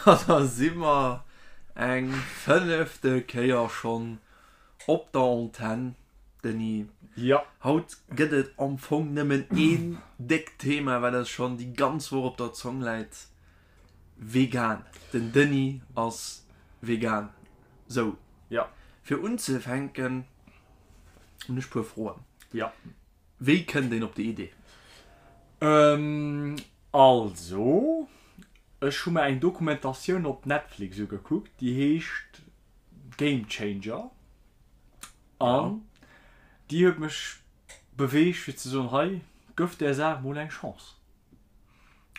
Domadder si mer eng fënnefte Kéier schonn op der Antenn, Denis. Jo. Haut gëtt et am Fong nëmmen een déckt Thema, wat eis schonn déi ganz Woch op der Zong läit, Vegan. Den Denis ass vegan. Sou. Jo. Fir unzefänken hunn ech puer Froen. Jo. Wéi kënnt een op déi Idee? Also, ech hu mer eng Dokumentatioun op Netflix ugekuckt, déi heescht Game Changer. An déi huet mech beweegt fir ze soen, hei, gëff där Saach mol eng Chance.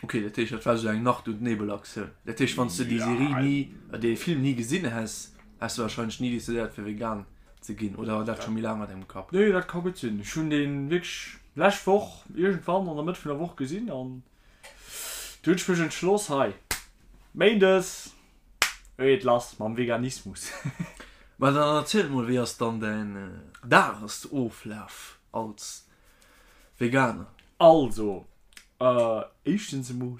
Ok, dat heescht dat war esou eng Nacht und Nebel Aktioun. Dat heescht wann s de déi Serie ni, dee Film ni gesinn häss, häss de wahrscheinlech ni decidéiert fir vegan ze ginn, oder war dat scho méi laang an dengem Kapp? Nee, dat ka gutt sinn. Ech hunn dee wierklech lescht Woch iergendwann an der Mëtt vun der Woch gesinn an du hunn ech mech entschloss, hei Méindes geet lass mam Veganismus. Ma dann erziel mol, wéi ass dann däin Dagesoflaf als Veganer? Also, éischtens emol,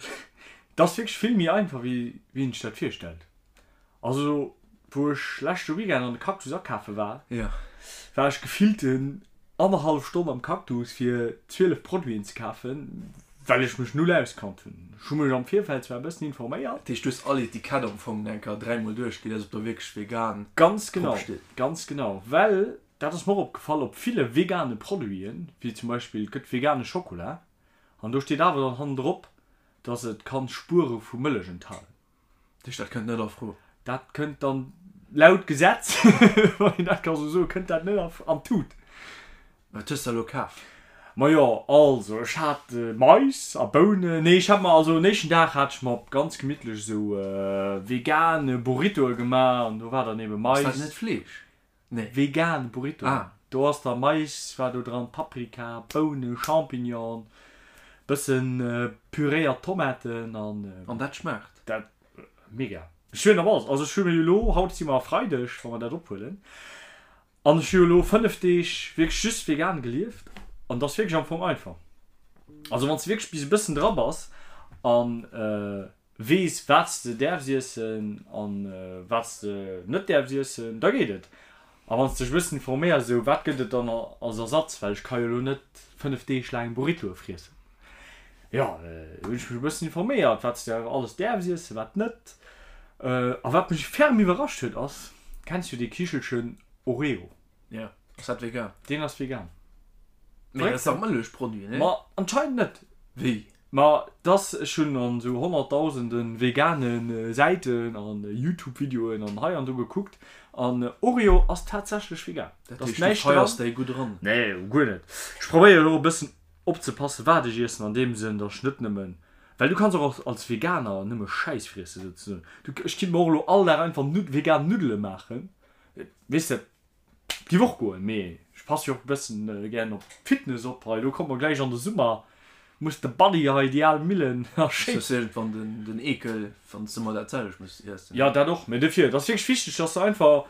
et ass wierklech vill méi einfach wéi een sech dat virstellt. Also wou ech leschte Weekend an de Cactus akafe war, war ech gefillten annerhallef Stonn am Cactus fir 12 Produiten ze kafen, well ech mech null auskannt hunn. Ech hu mech am Virfeld zwar e bëssen informéiert. Dat heescht du hues all Etikett am Fong eng Kéier dräimol duerchgelies ob do wierklech vegan Ganz genau, drop steet? ganz genau, well Dat ass mer och opgefall op ville vegane Produiten, wéi zum Beispill et gëtt vegane Schokola an do steet awer dann hannendrop, dass et kann Spuere vu Mëllech enthalen. Dat heescht, dat kënnt net a Fro? Dat kënnt dann laut Gesetz, wann een dat ka sou soen, kënnt dat net an d'Tut. Wat hues de elo kaf? Majo, also ech hat Mais a Bounen, nee ech hat mer also en éischten Dag hat ech mer ganz gemittlech esou vegane Burritoe gemaach an do war dann ebe Mais. Ass dat net Fleesch? Nee. Vegan Burrito. Ah. Do ass da Mais war do dran, Paprika, Bounen, Champignon, bëssen püréiert Tomaten an. An dat schmaacht? Dat, mega. Ech hunn op alles, also ech hu mir jo elo, haut si mer Freideg, wa mer dat ophuelen, an ech hu jo elo 5 Deeg wierklech just vegan gelieft an et ass wierklech am Fong einfach. Also wann s de wierklech bis e bëssen dra bass an. Weess wat s de däerfs iessen an wat s de net däerfs iessen, da geet et. A wann s dech e bëssen informéiers, esou wat gëtt et dann als Ersatz, well ech ka jo elo net 5 Deeg laang Burritoe friessen. Jo, hunn ech mech e bëssen informéiert, wat s de alles däerfs iessen, wat net. A wat mech ferm iwwerrascht huet ass, kenns du dee Kichelchen Oreo? Jo, ass dat vegan? Deen ass vegan. Mee dat ass dach Mëllechproduit, nee? Ma anscheinend net. Wéi? Ma dass, ech hunn an esou honnertdausende vegane Säiten an Youtube-Videoen an hei an do gekuckt an Oreo ass tatsächlech vegan. Dat heescht, du feiers déi gutt eran? Nee, guer net. Ech probéieren och e bëssen opzepassen, wat ech iessen, an deem Sënn, dass ech net nëmmen, well du kanns och als Veganer nëmme Schäiss friessen souzesoen. Du, ech kinnt mer och elo all Dag einfach vegan Nuddele maachen, weess de. Giff och goen, mee ech passe jo och e bëssen gären op d'Fitness op hei. Elo komme mer gläich an de Summer, muss de Buddy hei déi al Millen a Shape. Hues iergendwann den Eekel wann s de ëmmer dat selwecht muss iessen. Jo dat och, mee dofir, et ass wierklech wichteg dass de einfach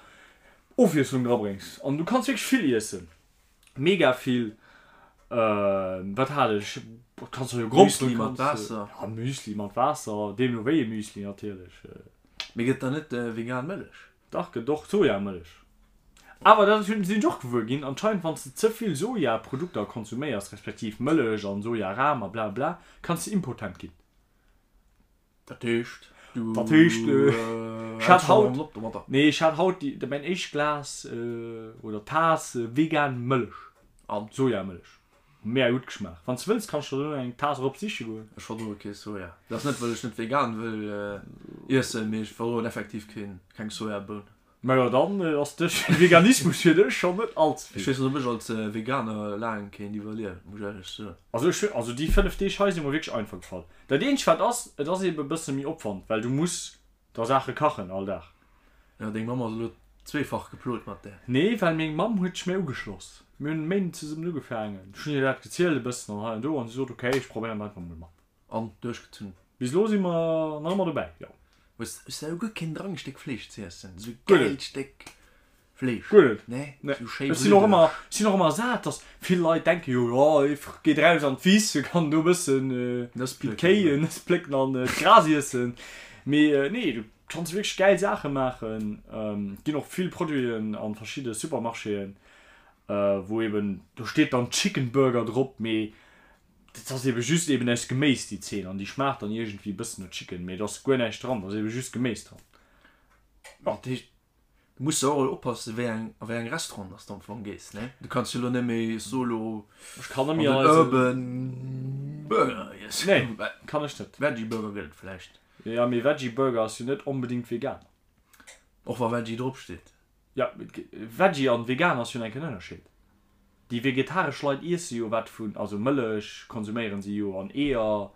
Ofwiesslung drabréngs an du kanns wierklech vill iessen, mega vill. Wat hat ech, kanns jo Gromperen, Müsli mat Waasser. Ja Müsli mat Waasser, deemno wéi ee Müsli natierlech. Mee gëtt da net vegan Mëllech? Dach gëtt och Sojamëllech. Awer dat sinn ech och gewuer ginn, anscheinend wann s de ze vill Sojaprodukter konsuméiers, respektiv Mëllech an Sojaram a bla bla, kanns de impotent ginn. Dat heescht du Dat heescht ech hat haut, nee ech hat haut déi mäin éischt Glas oder Taass vegan Mëllech. An? Sojamëllech. Mega gutt geschmaacht. Wann s de wëlls kanns de der dono eng Taass erop siche goen. Ech verdroe kee Soja. Dat ass net well ech net vegan wëll iessen, mee ech verdroen effektiv keen keng Sojaboun. Majo dann ass de Veganismus fir dech schonn net all ze vill. Ech weess net ob ech als Veganer laang kéint iwwerliewen, muss ech éierlech soen. Also ech also déi 5 Deeg hei si mer wierklech einfach gefall. Dat eenzegt wat ass, et ass eben e bësse méi Opwand, well du muss Da Saache kachen all Dag. Jo, deng Mamm ass elo zweefach geplot mat där. Nee, well meng Mamm huet sech mir ugeschloss. Mir hunn e Méinden zesummen ugefaangen. Ech hunn hir dat gezielt e bëssen an hei an do an si sot, ok, ech probéieren et einfach mol mat. An duerchgezunn? Bis elo si mer nach ëmmer dobäi, jo. Hues de elo guer keen Drang e Stéck Fleesch z'iessen? Esou e gäilt Stéck Fleesch. Guer net. Nee, Nee. sou schéi Ech sinn och bluddeg. ëmmer, ech sinn och ëmmer sat, dass vill Leit denke jo, jo, ee geet eraus an d'Wiss, e kann do e bëssen Nëss wéi plécken, d'Kéi oder? Nëss plécken an d'Gras iessen. Mee nee, du kanns wierklech gäil Saache maachen. Et ginn och vill Produiten a verschidde Supermarchéen, wou eben, do steet dann Chicken Burger drop, mee dat ass ebe just eben aus Geméis déi Zeen an déi schmaacht dann iergendwéi e bëssen no Chicken, mee do ass guer näischt dran, do ass ebe just Geméis dran. Dat heescht, du muss jo och elo oppassen, wéi eng, a wéi eng Restaurant dass de am Fong gees, ne? Du kanns jo elo net méi solo Ech kann net an méi den an eise. Urban Burger iessen. Nee, kann ech net. Veggie Burger gëtt et vläicht. Jo, mee Veggie Burger ass jo net onbedingt vegan. Och wa Veggie drop steet. Jo, Veggie an vegan ass jo enken Ënnerscheed. Déi vegetaresch Leit iesse jo wat vun, also Mëllech konsuméieren si jo an Eeër,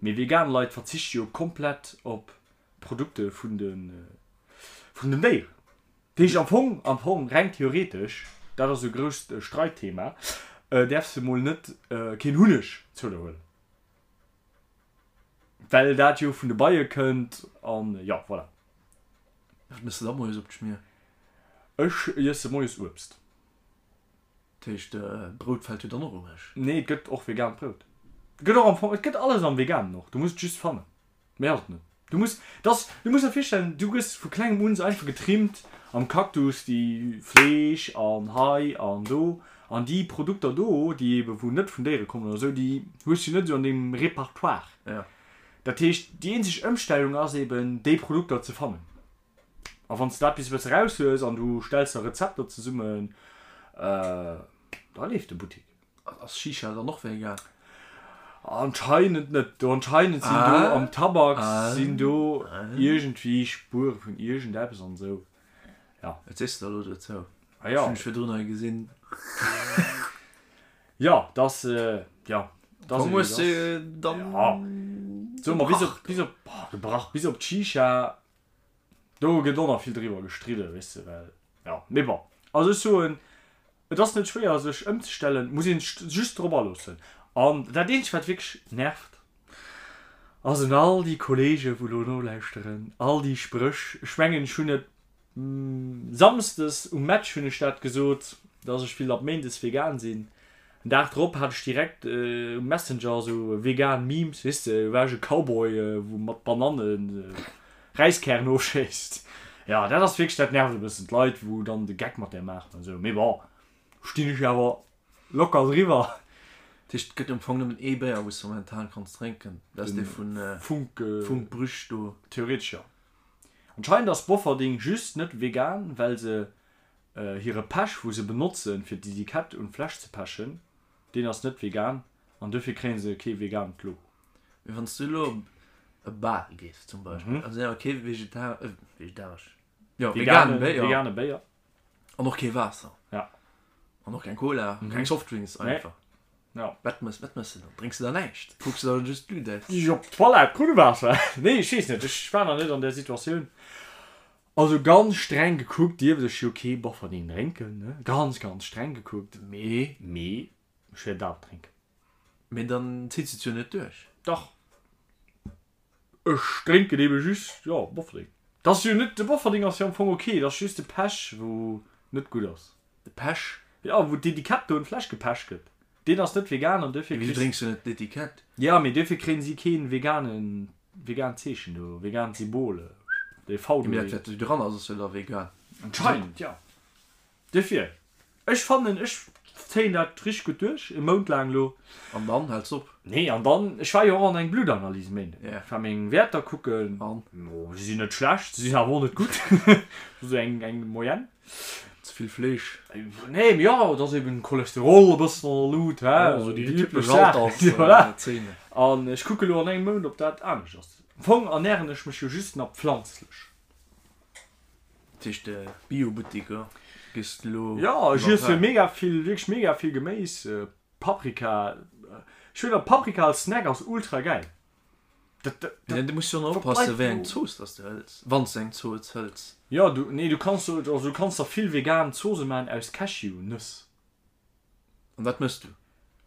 mee vegan Leit verzichte jo komplett op Produkte vun de vun den Déieren. Dat heescht am Fong, am Fong reng theoretesch, dat ass e grousst Streitthema, däerfs de mol net keen Hunneg zou der huelen. Well dat jo vun de Beie kënnt an jo, voilà. Wat mëss de da moies op d'Schmier? Ech iesse moies Uebst. Dat heescht, Brout fält jo dann och ewech? Nee, et gëtt och vegaant Brout. Et gëtt och am Fong, et gëtt alles am Veganen och, du muss et just fannen. Méi ass et net. Du muss, dass, du muss der virstellen, du gëss vu klengem un sou einfach getrimmt am Cactus, déi Fleesch an hei an do an déi Produkter do, déi ebe wou net vun Déiere kommen oder sou, déi hues du net sou an dengem Repertoire. Ja. Dat heescht, déi eenzeg Ëmstellung ass eben, déi Produkter ze fannen. A wann s de dat bis e bësse raus hues an du stells der Rezepter zesummen, da leeft de Buttik. Ass Shisha dann och vegan? Anscheinend net. Do anscheinend sinn do am Tabak sinn do iergendwéi Spuere vun iergendeppes an esou. Ja. Wat sees de da elo dozou? Ah ja. Hunn ech virdrun hei gesinn. Ja, dass, ja. Dass hues de dann. Ja. Soe mer bis op, bis op, gebrach, bis op d'Shisha. Do gëtt och nach vill driwwer gestridden, weess de, well, jo, mee bon. Also ech soen, et ass net schwéier sech ëmzestellen, muss een sech just drop aloossen. An dat eenzegt wat wierklech nervt, ass un all déi Kollege wou elo nolauschteren, all déi Spréch, ech mengen ech hunn et Samsdes um Match hunn ech dat gesot, dass ech will ab Méindes vegan sinn. En Dag drop hat ech direkt um Messenger sou vegan Memes, weess de, war ech e Cowboy wou mat Banannen Räiskären ofschéisst. Jo, dat ass wierklech, dat nervt e bëssen d'Leit wou dann de Geck mat där maachen an sou. Mee bon, stinn ech awer locker driwwer. Dat heescht, et gëtt am Fong nëmmen ee Béier wou s de momentan kanns drénken, dat ass dee vun Funk, Funk Brüch do. Theoretesch jo. Anscheinend ass Bofferding just net vegan, well se hire Pech wou se benotzen fir d'Etikett un d'Fläsch ze pechen, deen ass net vegan an dofir kréien se kee vegaant Logo. Mee wanns du elo op e Bal gees zum Beispill, an se hunn awer kee vegetaresch, jo vegane Béier, vegane Béier an och kee Waasser, ja, an och keng Cola, keng Softdrinks einfach. Ja. Wat mëss, wat mëss de dann? Drénks de dann näischt? Kucks de dann just d'Lut aus? Ech op d'Toilette, Krunnewaasser. Nee, ech weess net, ech war nach net an där Situatioun. Also ganz streng gekuckt dierft ech jo kee Bofferding drénken, ne? Ganz, ganz streng gekuckt. Mee? Mee ech wäert awer drénken. Mee dann zitt se et jo net duerch. Dach. Ech drénken ebe just, jo, Bofferding. Dat ass jo net, de Bofferding ass jo am Fong ok, dat ass just de Pech wou net gutt ass. De Pech? Jo, wou d'Etikett do un d'Fläsch gepecht gëtt. Deen ass net vegan an duerfir Mee wéi drénks du net d'Etikett? Jo, mee duerfir kréien si keen veganen, vegaant Zeechen do, vegaant Symbol, dee V do. Mee dat wat do dran ass, ass jo da vegan. Anscheinend, jo. Duerfir, ech fannen, ech zéien dat richteg gutt duerch, e Mount laang elo. An dann häls op? Nee, an dann, ech war jo och an eng Bluttanalyse Méinden. Ja. Ech war meng Wäerter kucken. An? Jo, se sinn net schlecht, se sinn awer och net gutt. Sou eng, eng Moyenne. Ze vill Fleesch? Nee, mee jo, et ass eben Cholesterol e bëssen an der Lut, hä, Jo, sou déi déi üblech typesch Saachen. Voilà. Alterszenen. An ech kucke elo an engem Mount, ob dat anescht ass. Am Fong ernären ech mech jo just nach pflanzlech. Dat heescht de Bio-Buttik gees de elo Jo, ech iesse mega vill, wierklech mega vill Geméis, Paprika. Ech hunn Paprika als Snack ass ultra gäil. Dat, dat, dat, du muss jo och oppassen, wéi eng Zooss dass de hëls, wann s de eng Zooss hëls. Jo, du, nee, du kanns, also du kanns der vill vegan Zoosse maachen aus Cashew-Nëss. An wat mëss du?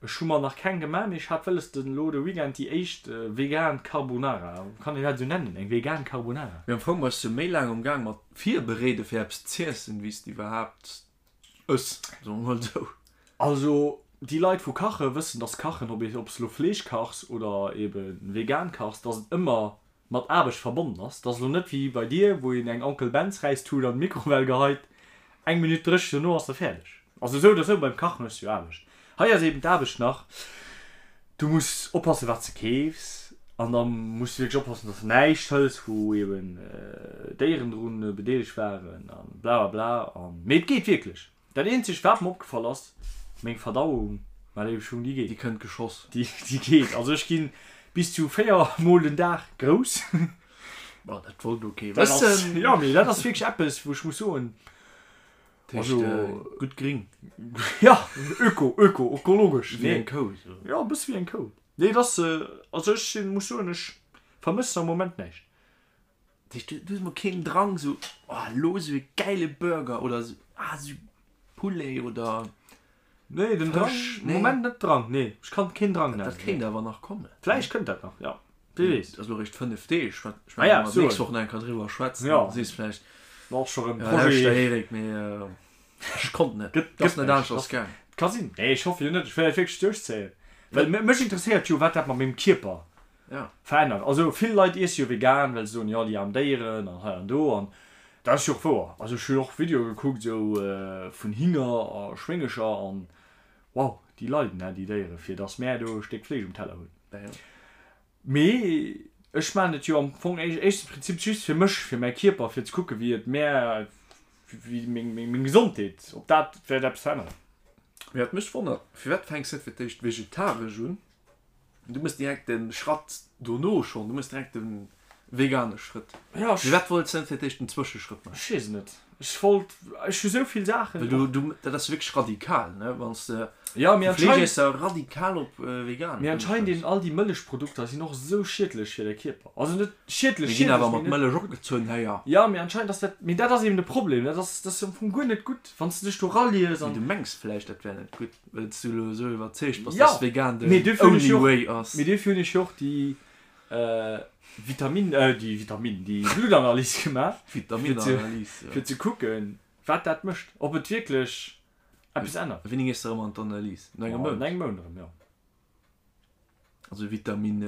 Ech hu mer nach keng gemaach, mee ech hat wëlles den elo de Weekend déi éischt vegan Carbonara, kann een dat esou nennen, eng vegan Carbonara? Mee am Fong bass du méi laang um Gaang mat virbereede fir eppes z'iessen, wéi s de iwwerhaapt ëss, soe mer mol esou. Also déi Leit wou kache wëssen, dass kachen, ob s elo Fleesch kachs oder eben vegan kachs, dass et ëmmer. mat Aarbecht verbonnen ass. Et ass elo net wéi bei dir, wou een eng Onkel Ben's Räistut an d'Mikrowell geheit, eng Minutt dréch, dono ass se fäerdeg. Also esou oder esou, beim Kachen hues du jo Aarbecht. Hei ass eben d'Aarbecht nach, du muss oppassen, wat s de keefs an da muss du wierklech oppassen, dass de näischt hëls, wou eben Déieren drun bedeelegt waren a blablabla. Mee et geet wierklech. Dat eenzegt wat mer opgefall ass, meng Verdauung, mä léiwe Schung, déi geet. Déi kënnt geschoss. Déi geet. Also ech ginn bis zu 4 mol den Dag grouss. Bon, dat wollt elo kee wëssen. Jo, mee dat ass wierklech eppes, wou ech muss soen, also gutt gring. Jo, öko, öko, ökologesch. Wéi eng Kou esou. Jo, e bësse wéi eng Kou. Nee, et ass, also ech sinn, muss soen, ech vermëssen am Moment näischt. Du hues mol keen Drang sou oh lo sou e gäile Burger oder sou ah sou Poulet oder Nee den Drang Fësch, nee. Moment net Drang nee ech kann keen Drang nennen. Dat kéint awer nach kommen. Vläicht kënnt dat nach ja wee weess. Ass lo réischt 5 Deeg wat ech ah ja, nächst Woch nach eng Kéier driwwer schwätzen ja. Sees vläicht och scho rëm Projet. Ja Eric mee ech konnt net gëtt ass net aneschters gaang. Ka sinn nee ech hoffe jo net ech wëll dat wierklech duerchzéien well mech interesséiert jo wat dat mat mengem Kierper Ja. Verännert. Also vill Leit iesse jo vegan, well se soen, jo déi aarm Déieren an hei an do. An dat ass jo och wouer. Also ech hunn och Videoe gekuckt esou vun Hinger a Schwéngecher an wow, déi leiden hè, déi Déiere fir dass mär do e Stéck Fleesch um Teller hunn. Ja, ja. Mee ech maachen et jo am Fong éischtens Prinzip just fir mech, fir mäi Kierper, fir ze kucke wéi et mär, wéi meng, meng Gesondheet, ob dat wäert eppes veränneren. Mee wat mech wonnert, firwat fänks net fir d'éischt vegetaresch un? Du mëss direkt den Schratt dono schon, du mëss direkt den vegane Schrëtt. Ja, ech. Firwat wollts de net fir d'éischt den Zwëscheschrëtt maachen? Ech weess et net. Ech wollt, ech hu sou vill Saachen. Well du, du, dat ass wierklech radikal, ne, wann s de Ja, mee vu Fleeschesser radikal op vegan Mee anscheinend eben all déi Mëllechprodukter sinn och sou schiedlech fir de Kierper. Also net schiedlech, Mir ginn awer mat Mëllech opgezunn, héier. Ja, mee anscheinend ass dat, mee dat ass eben de Problem, dat ass, dat ass am Fong guer net gutt, wann s de dech do ralies an. Mee du mengs vläicht, dat wär net gutt. Well s du elo esou iwwerzeegt bass, dass vegan den only way ass. Mee dofir hunn ech jo och déi Vitamin, déi Vitamin, déi Bluttanalys gemaach, Vitaminanalys, jo. Fir ze kucken, wat dat mécht, ob et wierklech eppes ännert. Wéini gees de erëm an d'Analys? No engem Mount? No engem Mount erëm, jo. Also Vitamin,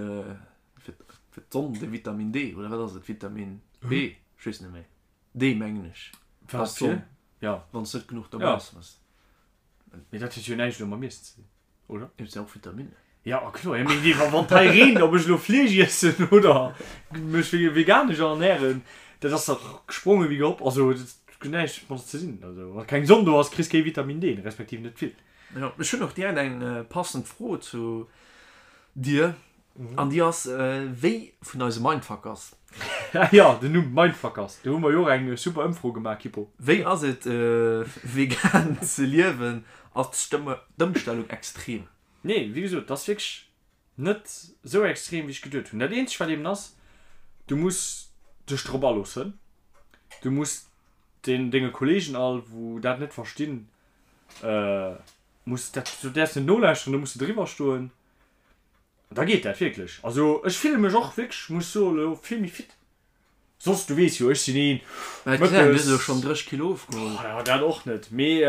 fir d'Sonn, de Vitamin D, oder wat ass et? Vitamin B? Ech weess net méi. D mengen ech. Wat fir? Jo. Wann s net genuch dobäi ass. Mee dat huet jo näischt elo mam Iessen ze dinn, oder? Et sinn och Vitaminen. Ja, a kloer. Ja, mee déi, wann hei reent, ob ech elo Fleesch iessen oder mech veganesch ernähren, dat ass dach gespronge wéi gehopp. Also, dat huet näischt mat ze dinn. Also, wa keng Sonn do ass, kriss kee Vitamin D, respektiv net vill. Jo, ech hunn och direkt eng passend Fro zu dir. An déi ass, Wéi vun eise Mindfuckers? Jo, den Numm Mindfuckers, do hu mer jo och eng super Ëmfro gemaach, Kippo. Wéi ass et vegan ze liewen? Ass d'Ëmstellung extrem? Nee, wéi gesot, et ass wierklech net esou extrem, wéi ech geduet hunn. Dat eenzegt wat eben ass, du muss dech drop aloossen. Du muss den denge Kollegen all, wou dat net verstinn, muss dat, du däerfs net nolauschteren, do muss de driwwer stoen. Da geet dat wierklech. Also ech fille mech och wierklech, muss soen, elo vill méi fit. Soss, du weess jo, ech sinn een, Mä et gesäit, du hues elo schonn 30 Kilo ofgeholl. Oh jo, dat och net. Mee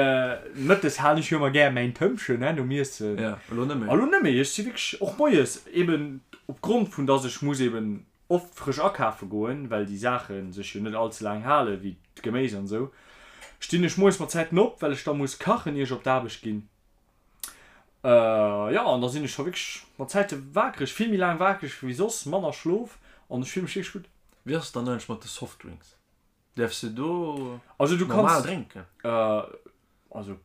mëttes halen ech jo ëmmer gär mäin Tëmpchen, ne, nom Iessen. Ja, elo net méi. Elo net méi. Ech si wierklech och moies, eben opgrond vun dass ech muss eben oft frësch akafe goen, well déi Saache sech jo net all ze laang halen, wéi d'Geméis an esou, stinn ech moies mat Zäiten op, well ech da muss kachen, ier ech op d'Aarbecht ginn. Jo, an da sinn ech scho wierklech mat Zäite wakereg, vill méi laang wakereg wéi soss, manner Schlof an ech fille mech wierklech gutt. Wéi ass et dann eigentlech mat de Softdrinks? Däerfs de do Also du normal kanns, drénken also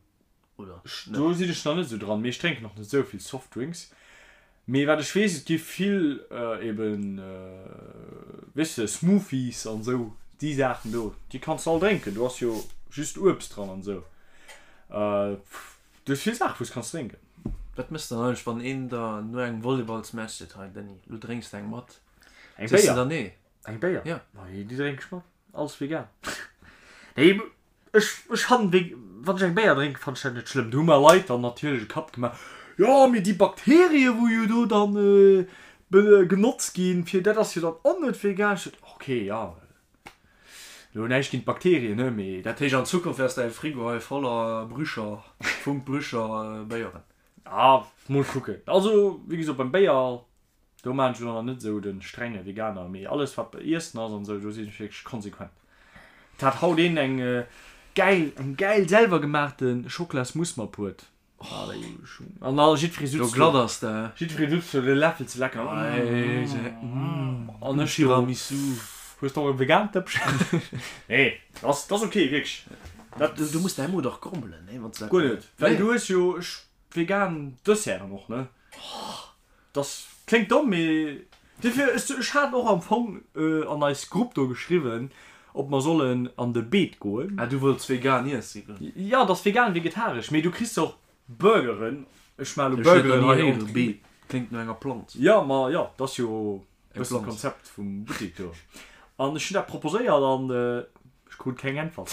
oder ech, net? do sinn ech nach net esou dran, mee ech drénken och net esou vill Softdrinks. Mee wat ech weess, et gi vill eben, weess de, Smoothies an esou, déi Saachen do, déi kanns de all drénken, do ass jo just Uebst dran an esou. Du hues vill Saachen wou s kanns drénken. Wat mëss de dann eigentlech wann een der no engem Volleyballsmatch seet, hei Denis, lo drénks de eng mat? Eng Sees de Béier? dann nee? Eng Béier? Ja. Ma déi drénk ech mat. Alles vegan. Nee, ech, ech fannen wéi, wann ech eng Béier drénken, fannen ech dat net schlëmm. Do hu mer Leit dann natierlech e Kapp gemaach, jo mee déi Bakterien wou jo do dann genotzt ginn fir, dat ass jo dann och net vegan. Ech sot, ok, ja. Lo näischt géint d'Bakterien, ne, mee. Dat heescht an Zukunft ass däi Frigo hei voller Brücher, Funk Brücher Béieren. Ah, mol kucken. Also, wéi gesot, beim Béier. Do maan ech elo nach net esou den strenge Veganer, mee alles wat bei Iessen ass an esou, do sinn ech wierklech konsequent. Et hat haut een eng gäil, eng gäil selwer gemaachte Schocklasmousse matbruet. An all jiddweree sutz do, glatt ass de, jiddweree sutz do de Läffel ze lecken. An ech do, Tiramisu. Hues de och e vegaant Dëppchen? Nee, dat ass ok, wierklech. Dat, du muss däi Mo dach grommelen, nee, wann s de dat. Guer net, well du hues jo vegan Desserten och, ne? Dass kléngt domm, mee dofir, ech hat och am Fong an eis Grupp do geschriwwen, ob mer sollen an de Beet goen. Ah, du wollts vegan iessen goen? Jo, et ass vegan, vegetaresch, mee du kriss och Burgeren. Ech maache lo Burgeren hei och. Beet kléngt no enger Planz. Jo, ma jo, et ass jo e bëssen d'Konzept vum Buttek do. An ech hunn dat proposéiert an Ech krut keng Äntwert.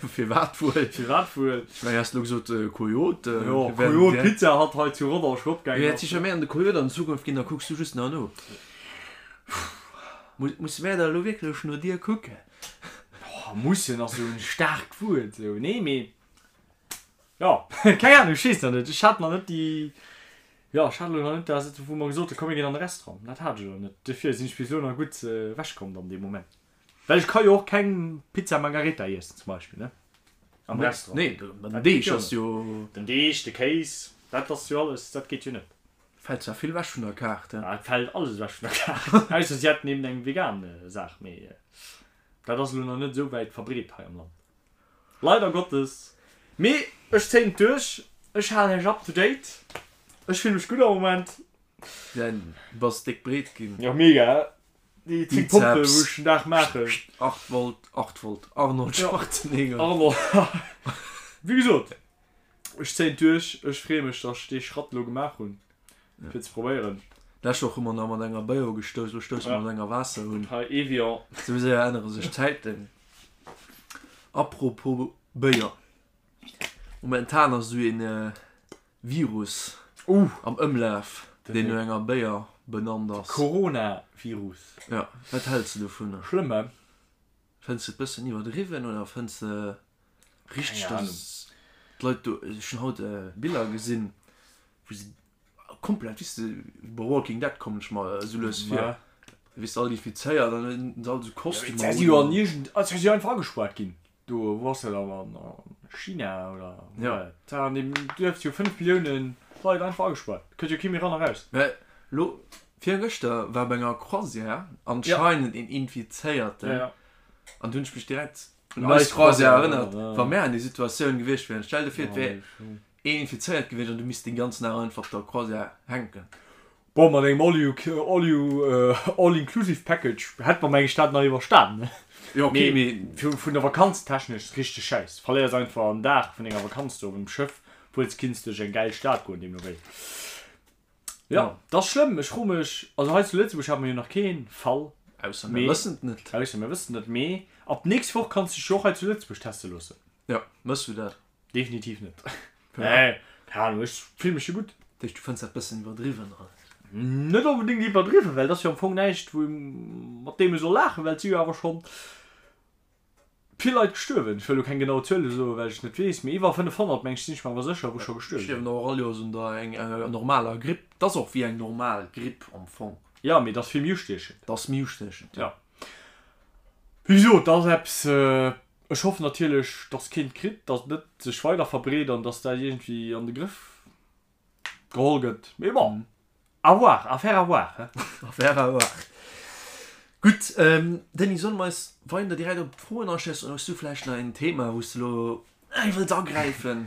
Firwat wuel? Firwat wuel? Ech mengen, häss elo gesot Coyote. Jo, Coyote Pizza hat hei zu Rodange opgaangen ass. Wäert sicher méi an de Coyote an Zukunft ginn, da kucks du just nach no. Musse mär da elo wierklech no dir kucken? Oh, mussen ass esou en staarkt Wuert esou. Nee, mee jo, keng Ahnung, ech weess nach net. Ech hat nach net déi, jo, ech hat elo nach net dat, wou mer gesot hunn, komm mir ginn an de Restaurant. Dat hat ech elo net. Dofir sinn ech bis elo nach gutt ewechkomm dann dee Moment. Well ech ka jo och keng Pizza Margherita iessen zum Beispill, ne? Am Restaurant. Nee, den Deeg ass jo. Den Deeg, de Kéis, dat ass jo alles, dat geet jo net. Fält zwar vill ewech vun der Kaart, he? Et fält alles ewech vun der Kaart, ausser si hätten eben eng vegan Saach, mee dat ass elo nach net esou wäit verbreet hei am Land. Leider Gottes. Mee ech zéien et duerch, ech halen iech up to date. Ech fille mech gutt am Moment. Du bass déck breet ginn. Jo, mega. Déi 10 Pompen wou ech den Dag maachen. 8 Volt, 8 Volt, Arnold Schwarzenegger. Arnold, wéi gesot, ech zéien et duerch. Ech freeë mech, datt ech dee Schratt elo gemaach hunn, fir ze probéieren. D'lescht Woch hu mer nach mat enger Béier ugestouss, elo stousse mer mat enger Waasser un. Hei, Evian. Esou séier ännere sech d'Zäiten. Apropos Béier, momentan ass esou een Virus am Ëmlaf, deen no enger Béier benannt ass. Coronavirus. Jo, wat häls de dovunner? Schlëmm, he? Fënns de et bëssen iwwerdriwwen oder fënns de richteg, dass d'Leit do, ech hunn haut Biller gesinn, wou se komplett, weess de, bei Walking Dead kommen ech mer esou lues vir, weess de, all infizéiert an dann hunn se all esou Kostümer un. Jo, mee si jo an iergend, si si jo einfach agespuart ginn. Do, wou ass dat dann? A China oder wou war dat? Da an deem Duerf si jo 5 Millioune Leit einfach agespaart. Kënnt jo kee méi ran a raus. Mä lo, virgëschter war bei enger Croisière anscheinend een Infizéierten an du hunn ech mech direkt un eis Croisière erënnert, wa mär an déi Situatioun gewiescht wieren. Stell der vir, et wär een infizéiert gewiescht an du misst den ganzen Dag einfach op der Croisière hänken. Bon, mat engem all you, all you, all inclusive package hätt mer meng ech dat nach iwwerstanen, ne? Jo, okay, mee vun der Vakanz technesch richteg schäiss. Verléiers einfach en Dag vun denger Vakanz do op engem Schëff, obwuel s kinns duerch eng gäil Stad goen deemno wéi. Jo, dat ass schlëmm. Ech froe mech, also hei zu Lëtzebuerg hate mer jo nach kee Fall, Ausser mir wëssen et net. Ausser mir wëssen et net, mee ab d'nächst Woch kanns de dech jo och hei zu Lëtzebuerg teste loossen. Jo, mëss du dat? Definitiv net. Nee, keng Ahnung, ech fill mech jo gutt. Dat heescht, du fënns dat bëssen iwwerdriwwen, oder? Net onbedéngt iwwerdriwwen, well et ass jo am Fong näischt, wou mat deem ee soll laachen, well et si jo awer schonn vill Leit gestuerwen. Ech wëll elo keng genau Zuele soen, well ech et net weess, mee iwwer 500, meng ech, sinn ech mer awer sécher, wou scho gestuerwe sinn. Stierwen och all Joers un der enger normaler Gripp. Et ass och wéi eng normal Gripp am Fong. Jo, mee et ass vill méi ustiechend. Et ass méi ustiechend, jo. Wéi gesot, et ass eppes, Ech hoffen natierlech, dass keen et kritt, dass et net sech weider verbreet an dass dat iergendwéi an de Grëff geholl gëtt. Mee bon, à voir, affaire à voir, he. Affaire à voir. Gutt, Denis, solle mer eis weider direkt op d'Froen aschiessen oder hues du vläicht nach en Thema, wou s de elo wëlls agräifen?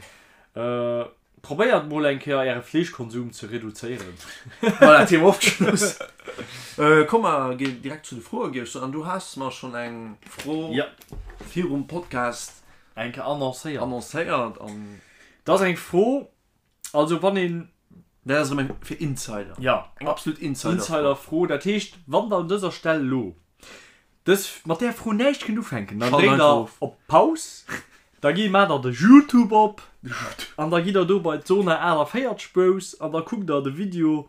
Probéiert mol eng Kéier äre Fleeschkonsum ze reduzéieren. Voilà, Thema ofgeschloss. Komm mer ginn direkt zu de Froen, géif ech soen. An du has mer schonn eng Fro virum Podcast eng Kéier annoncéiert. Annoncéiert an. Dat ass eng Fro, also wann een. Dat ass erëm eng fir Insider. Jo. Eng absolut Insider-Fro. Insider-Fro, dat heescht, wann der un dëser Stell elo Dës mat där Fro näischt kënnt ufänken, dann dréckt der op Paus, da gi maacht der de Youtube op an da gitt der do bei d'Zona 48 Bros an da kuckt der de Video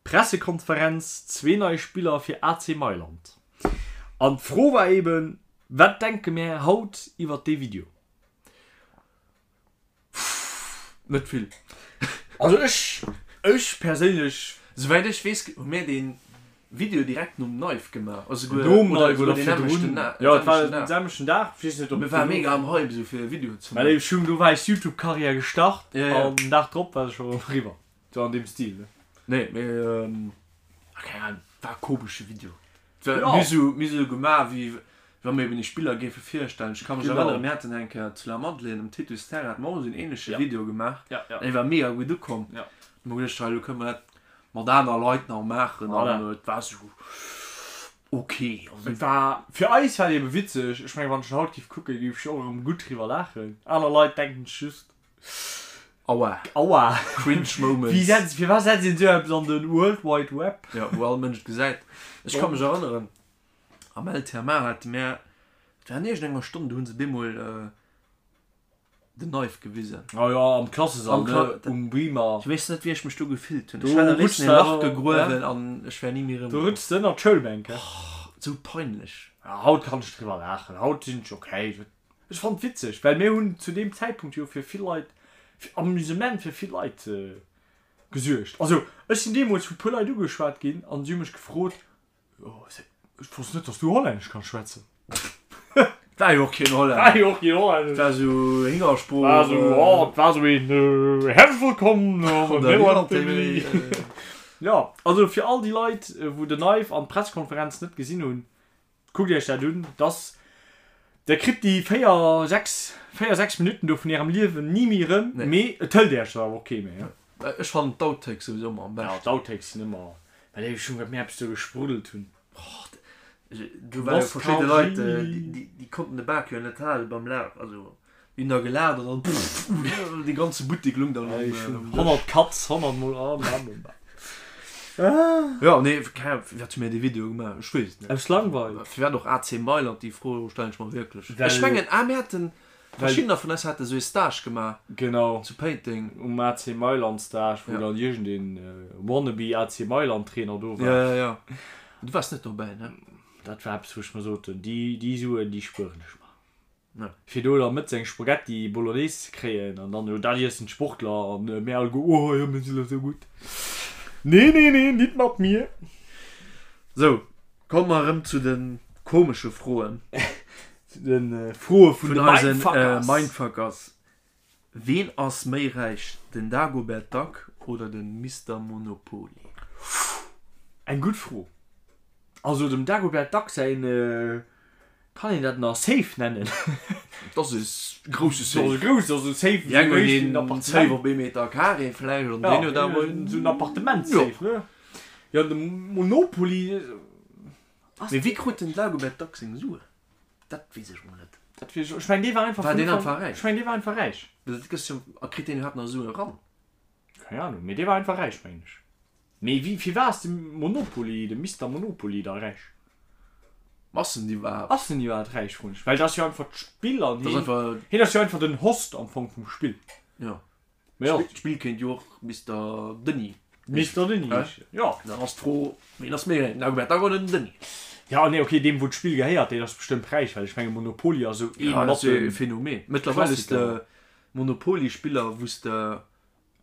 Pressekonferenz, zwee nei Spiller fir AC Mailand. An d'Fro war eben, wat denke mär haut iwwert dee Video? Net vill. Also ech, ech perséinlech. Souwäit ech weess, hu mir dee Video direkt nom Knife gemaach. Also souguer, Nom oder Knife souguer oder deen nämmlechten virdrun. Na, Jo, et war selwechten den Dag. selwechten Dag. Ech weess net, ob Mir et ware dono. mega am Hype esou fir e Video ze Well maachen. ech hunn, do war eis Youtube-Karriär gestart Ja, ja. an den Dag drop war se scho eriwwer. Sou an deem Stil, ne? Nee, mee, ah, keng Ahnung, war e komesche Video. Ja. Mir sou, mir sou gemaach, wéi wa mir eben déi Spiller géife virstellen. Ech ka mech Genau. erënneren, mir haten eng Kéier zu La Madeleine um Titus Terrain, hate mer och esou en ähnleche Ja. Video gemaach. Ja, ja. Dee war mega gutt ukomm. Ja. Hu mer geduecht, hei, elo kënne mer dat mat aner Leit nach maachen. Voilà. An et war sou ok. Also, Et war, fir eis war et ebe witzeg. Ech mengen, wann ech en haut géif kucken, géif ech och erëm gutt driwwer laachen. Aner Leit denken sech just, Aua. Aua. Cringe Moments. Wéi setzt, firwat setzt een esou eppes an den World Wide Web? Ja, wou all Mënsch et gesäit. Ech ka mech erënneren, am LTMA hate mär, et war an iergendenger Stonn, do hu se bemol den Knife gewisen. Oh jo, am Klassesall, Am Kla ne, um Beamer. Ech weess net, wéi ech mech do gefillt hunn. Do Ech hätt am rutschs léifsten de e Lach awer, gegruewen an ech wär ni méi Do erëmkomm. rutschs de ënnert d'Schoulbänk, he? Sou peinlech. Ja, haut kann ech driwwer laachen. Haut sinn ech okay. Ech fannen et witzeg, well mir hunn zu deem Zäitpunkt jo fir vill Leit, fir Amusement fir vill Leit gesuergt. Also ech sinn deemools vu puer Leit ugeschwat ginn an si hu mech gefrot, Jo, ech wosst net, dass du Hollännesch kanns schwätzen. War jo och keen Hollännesch. War jo och keen Hollännesch. War sou Hingersprooch. War sou, oh, et war sou een Herzlich willkommen an der Nederland TV. Jo, also fir all déi Leit, wou den Knife an d'Pressekonferenz net gesinn hunn, Kuckt iech dat un, dass der kritt déi 4, 6, 4, 6 Minutten do vun ärem Liewen ni méi erëm, mee et hëlt iech der awer och kee méi. Ech fannen d'Outtakes souwisou ëmmer am Ja, beschten. d'Outtakes sinn ëmmer, well ech hunn, wat mir eppes do gespruddelt hunn. Do ware jo verschidde Leit, déi konnten de Bak jo net hale beim Laf, also déi hunn da gelaacht an dann dee ganze Buttek lung dann um Dësch. 100 Cuts, 100 mol a bam. Jo, nee, keng Ahnung, firwat hu mir dee Video gemaach? Ech weess et net. Aus Langweil. Firwat och AC Mailand, déi Fro stellen ech mer wierklech. Ech mengen, ah, mir haten, verschiddener vun eis hate sou ee Stage gemaach. Genau. Zu Péiteng. Um AC Mailand Stage, wou dann iergendeen wannabe AC Mailand Trainer do war. Jo, jo, jo. Du waars net dobäi, ne? Dat war eppes, wou ech mer soten, déi, déi Suen, déi spueren ech mer. Ja. Fir do da mëttes eng Spaghetti Bolognese ze kréien an dann, jo, dat iessen d'Sportler an mir alleguer, oh jo, mir sinn jo sou gutt. Nee, nee, nee, nit mat mir. Sou, komme mer erëm zu de komesche Froen. Zu de Froe vun de Vun eisen Mindfuckers. Mindfuckers. Ween ass méi räich, den Dagobert Duck oder de Mister Monopoly? Eng gutt Fro. Also dem Dagobert Duck säin Kann een dat nach Safe nennen? Dat ass e grousse Safe. Dat ass e grousse, also Safe Déi eng hunn een Safe op ee Meter Carré vläicht an deen huet awer een. Esou en Appartement-Safe, ne? Jo, de Monopoly ass. Mee wéi krut den Dagobert Duck seng Suen? Dat weess ech mol net. Dat weess ech och. Ech mengen, dee war einfach War deen vun einfach räich? Ech mengen, dee war einfach räich. Dat gëss jo, a kritt deen iwwerhaapt nach Suen eran? Keng Ahnung, mee dee war einfach räich, mengen ech. Mee wéi, firwat ass de Monopoly, de Mister Monopoly da räich? Ass en iwwerhaapt? Ass en iwwerhaapt räich, froen ech. Well dat ass jo einfach d'Spill an Dat ass hien, einfach. hien ass jo einfach den Host am Fong vum Spill. Jo. Mee jo. D'Spill kéint jo och Mister Denis Mister Denis heeschen, jo. Dann ass d'Fro, wien ass méi räich, den Dagobert Duck oder den Denis? Ja, nee, okay, deem wou d'Spill gehéiert, deen ass bestëmmt räich, well ech menge Monopoly ass esou ee Ja, dat mat ass jo e de Phänomen. Mëttlerweil hues de Klassiker. Monopoly-Spiller, wou s de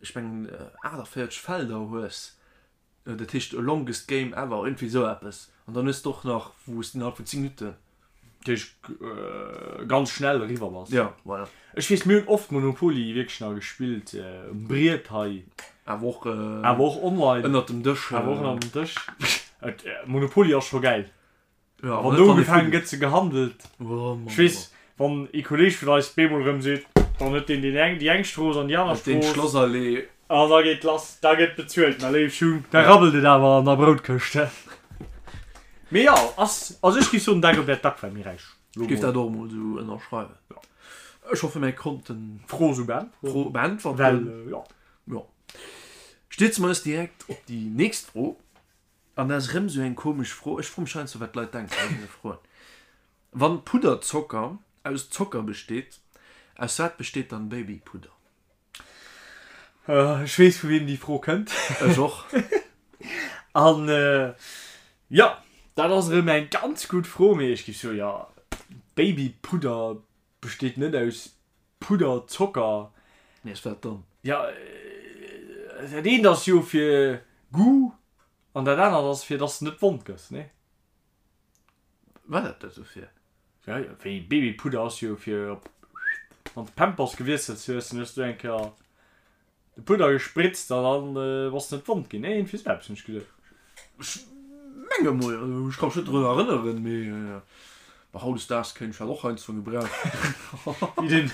ech mengen 48 Felder hues, dat heescht longest game ever, iergendwéi esou eppes, an dann hues de och nach wou s de innerhalb vun 10 Minutten. Dat heescht ganz schnell eriwwer bass. Jo, voilà. Ech weess, mir hunn oft Monopoly wierklech nach gespillt um Briet hei. Awer och. Awer och online. Ënnert dem Dësch. Awer och ënnert dem Dësch. Monopoly ass scho gäil. Ja, Wann do ugefaangen gëtt ze gehandelt. Ech weess, wann ee Kolleeg vun eis bemol erëm seet, dann huet deen deen eng déi eng Strooss an déi aner Deen Strooss. Schlossallee. An da geet lass, da gëtt bezuelt, mä léif Schung, da rabbelt et awer an der Broutkëscht, he. Mee jo, ass, also ech géif soen, Dagobert Duck war méi räich. Ech géif dat och emol esou ënnerschreiwen. Ech hoffe mir konnten d'Fro esou beäntweren. D'Fro beäntwerten. Well, jo. Jo. Stierze mer eis direkt op déi nächst Fro. An dat ass erëm esou eng komesch Fro. Ech froe mech heiansdo, wat d'Leit denken bei deene Froen. Wann Pudderzocker aus Zocker besteet, aus wat besteet dann Babypudder? Ech weess, vu wiem déi Fro kënnt. Ech och. An jo, dat ass erëm eng ganz gutt Fro. Mee ech géif soen, jo, Babypudder besteet net aus Pudderzocker. Mee aus wat dann? Jo, dat eent ass jo fir Goût. An dat anert ass fir dass de net wond gëss, nee? War dat dat dofir? Ja, wéi Babypudder ass jo fir op wann de Pampers gewiesselt hues, dann hues du eng Kéier de Pudder gespritzt an dann bass de net wond ginn. Nee, iergendwéi sou eppes hunn ech geduecht. Ech menge mol, ech ka mech net drun erënneren, mee bon, hautdesdaags kéint ech dat och heiansdo gebrauchen. Wéi den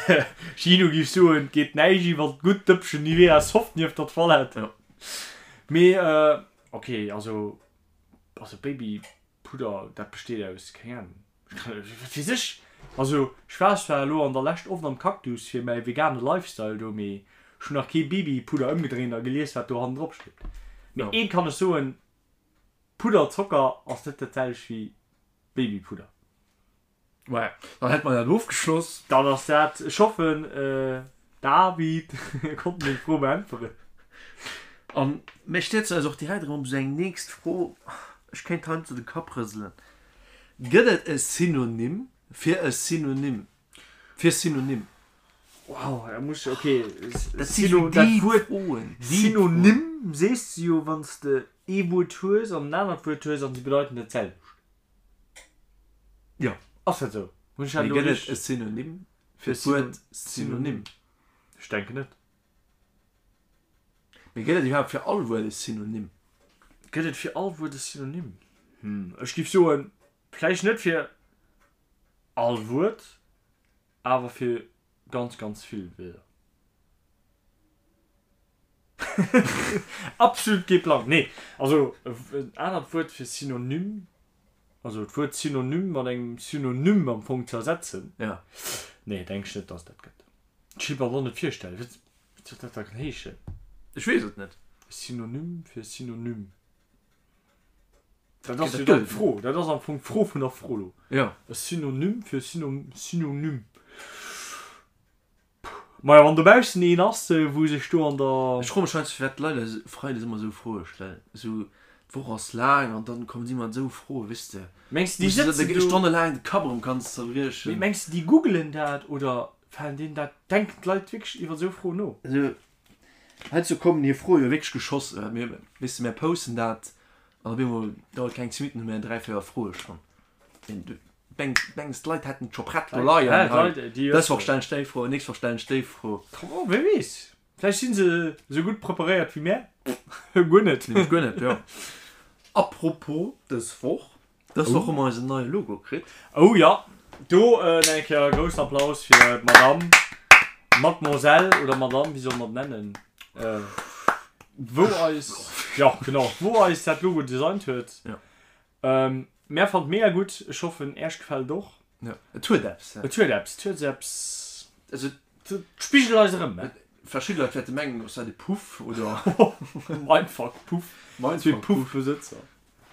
Gino géif soen, et geet näischt iwwer d'gutt Dëppchen Nivea Soft nieft der Toilette. Jo. Mee ok, also also Babypudder, dat besteet aus, keng Ahnung, wat weess ech. Also ech war zwar elo an der Lescht oft am Cactus fir mäi vegane Lifestyle do, mee ech hunn nach kee Babypudder ëmgedréint a gelies wat do hannendrop steet. Mee eent kann ech soen, Pudderzocker ass net dat selwecht wéi Babypudder. Ouais, dann hätt mer dat ofgeschloss. Dann ass dat, ech hoffen David konnt meng Fro beäntweren. An mir stierzen eis och direkt erëm op esou eng nächst Fro, ech kéint heiansdo de Kapp rëselen, Gëtt et e Synonym fir e Synonym fir Synonym? Wow, da muss ech, okay, Dat si sou dat déi Wuert Froen, déi Froen. Synonym sees de jo wann s de ee Wuert hues an en anert Wuert hues an se bedeiten dat selwecht. Jo. Ass dat esou? Hunn ech dat elo Mee gëtt et e Synonym fir d'Wuert Synonym? Ech denken net. Mee gëtt et iwwerhaapt fir all Wuert e Synonym? Gëtt et fir all Wuert e Synonym? Hm, ech géif soen, vläicht net fir all Wuert, awer fir ganz, ganz vill Wierder. Absolut kee Plang. Nee, also en anert Wuert fir Synonym, also d'Wuert Synonym mat engem Synonym am Fong ze ersetzen, Ja. nee, denk ech net, dass et dat gëtt. Ech kéint mer et och net virstellen. Wat wat soll dat da heeschen? Ech weess et net. Synonym fir Synonym. Dat ass jo dann d'Fro. Dat ass am Fong d'Fro vun der Fro lo. Ja. E Synonym fir Synonym. Majo, wann dobaussen een ass, wou sech do an der. Ech froe mech heiansdo firwat d'Leit eis freides ëmmer esou Froe stellen. Esou, d'Woch ass laang an dann kommen si mat esou Froe, weess de. Mengs de déi sëtzen do. Stonnelaang de Kapp erëm kanns zerbriechen. Mee mengs de déi googelen dat oder falen deenen dat, denken d'Leit wierklech iwwer esou Froen no? Also heiansdo kommen hir Froe jo wierklech geschoss. Mir, weess de, mär posten dat an op eemol dauert keng 10 Minutten, hu mär 3, 4 Froe schonn. Mengs d'Leit hätten et scho prett do leien, hei, dës Woch stellen ech déi Fro, nächst Woch stellen ech déi Fro. Oh, wie weess, vläicht si se esou gutt preparéiert wéi mär. Guer net. Nämlech guer net, jo. Apropos dës Woch, dës Woch hu mer eisen neie Logo kritt. Oh jo, do nach eng Kéier e groussen Applaus fir d'Madame, Mademoiselle oder Madame, wéi solle mer et nennen, wou eis, jo genau, wou eis dat Logo designt huet. Jo. Mär fannt mega gutt, ech hoffen äerch gefällt et och. Jo, et huet eppes. Et huet eppes, et huet eppes, also et spigelt eis erëm. Verschidde Leit wäerte mengen, ass dat e Puff oder. Mindfuck Puff, Mindfuck Puff Besëtzer.